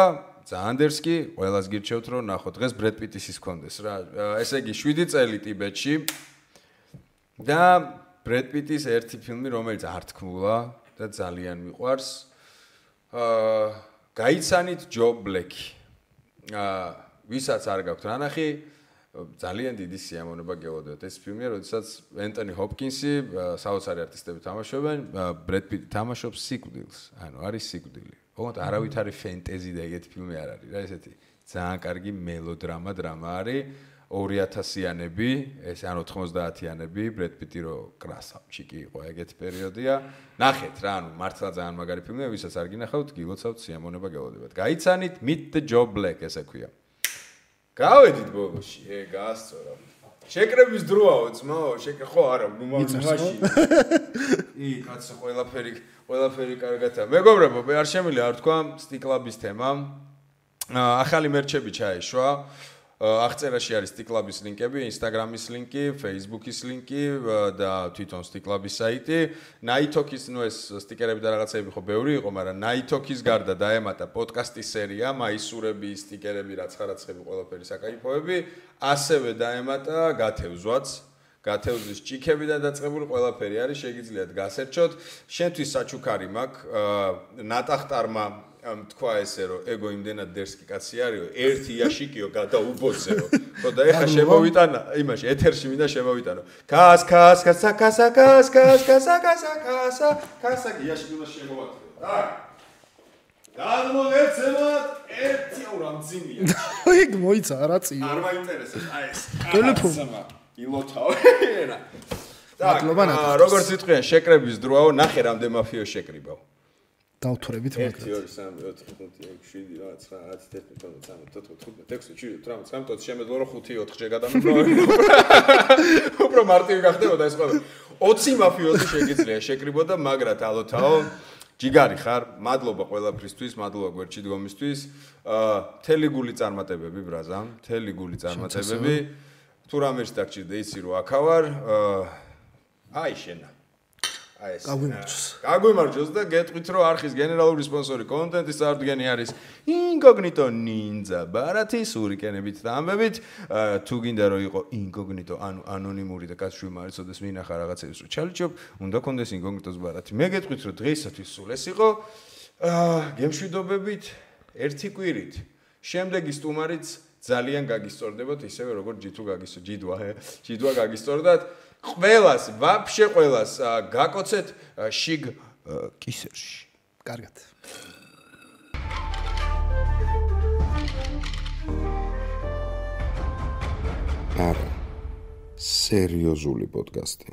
ძალიან დერსკი, ყველას გირჩევთ რომ ნახოთ. დღეს ბრედ პიტის ის კონდეს რა. ესე იგი 7 წელი ტიბეტში და ბრედ პიტის ერთი ფილმი, რომელიც არ თქმულა და ძალიან მიყვარს. გაიცანით ჯო ბლეკი. ვისაც არ გაქვთ რა ნახი, ძალიან დიდი სიამოვნება გელოდოთ. ეს ფილმია, როდესაც ენტონი ჰოპკინსი, საოცარი არტისტები თამაშობენ, ბრედ პიტი თამაშობს სიკვდილს. ანუ არის სიკვდილი. ოღონდ არავითარი ფენტეზი და ეგეთი ფილმი არ არის რა, ესეთი ძალიან კარგი მელოდრამა არის. 2000-იანები, ეს ანუ 90-იანები, ბრედ პიტი რო კრასავჩიკი იყო, ეგეთი პერიოდია. ნახეთ რა, ანუ მართლა ძალიან მაგარი ფილმია, ვისაც არ გინახავთ, გილოცავთ, სიამოვნება გელოდებათ. გაიცანით Meet the Joe Black ესე ქვია. გავედით ბოლოში, გაასწორა. შეკრების დროაო, ძმაო, ხო არა, ნუმაში. კაცო, ყველაფერი კარგათა. მეგობრებო, მე არ შემიძლია არ თქვა სტიკლაბის თემა. ახალი მერჩები ჩაეშვა. აღწერაში არის სტიკლაბის ლინკები, Instagram-ის ლინკი, Facebook-ის ლინკი და თვითონ სტიკლაბის საიტი. Nighthawk-ის, ნუ ეს სტიკერები და რაღაცები ხო ბევრი იყო, მაგრამ Nighthawk-ის გარდა დაემატა პოდკასტის სერია, მაისურები, სტიკერები, რაცხარაცხები, ყველაფერი საკაიფოები, ასევე დაემატა გათევზვაც. გათევზვის ჭიქებიდან დაწყებული ყველაფერი არის, შეგიძლიათ გასერჩოთ. შენთვის საჩუქარი მაქვს, ნატახტარმა თქვა ესე რომ ეგო იმდენად დერსკი კაცი არისო, ერთი იაშიკიო გადაუბოცეო. ხო და ეხა შემოვიტანა, იმაში ეთერში მინდა შემოვიტანო. კას იაშიკი უნდა შემოვატრო. და გადმოგეცემათ ერთი აურა მძიმია. ეგ მოიცა რა წიო. არ მაინტერესებს აი ეს. ტელეფონი ილოთავ. და როგორც იტყვიან შეკრების დროაო, ნახე რამდენ მაფიო შეკრიბავ. დავთვრებით მაგათ 1 2 3 4 5 6 7 8 9 10 11 12 13 14 15 16 17 18 შემეძლო რომ 5-4 გადამიგო. უფრო მარტივი გახდებოდა ეს ყველა. 20 მაფიოზი შეგიძლია შეკრიბოდა, მაგრად ალოთაო. ჯიგარი ხარ, მადლობა ყველაფრისთვის, მადლობა გვერდში დგომისთვის. მთელი გული წარმატებები ბრაზა, მთელი გული წარმატებები. თუ რამერს დაგჭირდა იცი რომ აქავარ. აი შენა. აი ეს გაგვიმარჯოს და გეტყვით რომ არხის გენერალური სპონსორი კონტენტის წარდგენი არის Incognito Ninja ბარათი სურიკენებით და ამბებით თუ გინდა რომ იყო Incognito ანუ ანონიმური და კაცშვილი მარიცოდეს მინახა რაღაცებს რომ ჩალიჩობ უნდა კონდეს Incognito-ს ბარათი მე გეტყვით რომ დღეისათვის სულ ეს იყო გემშვიდობებით ერთი კვირით შემდეგი სტუმარიც ძალიან გაგისწორდებათ ისევე როგორც ჯიდვა გაგისწორდათ ყველას, ვაფშე ყველას გაკოცეთ შიგ კისერში. კარგად. არა. სერიოზული პოდკასტი.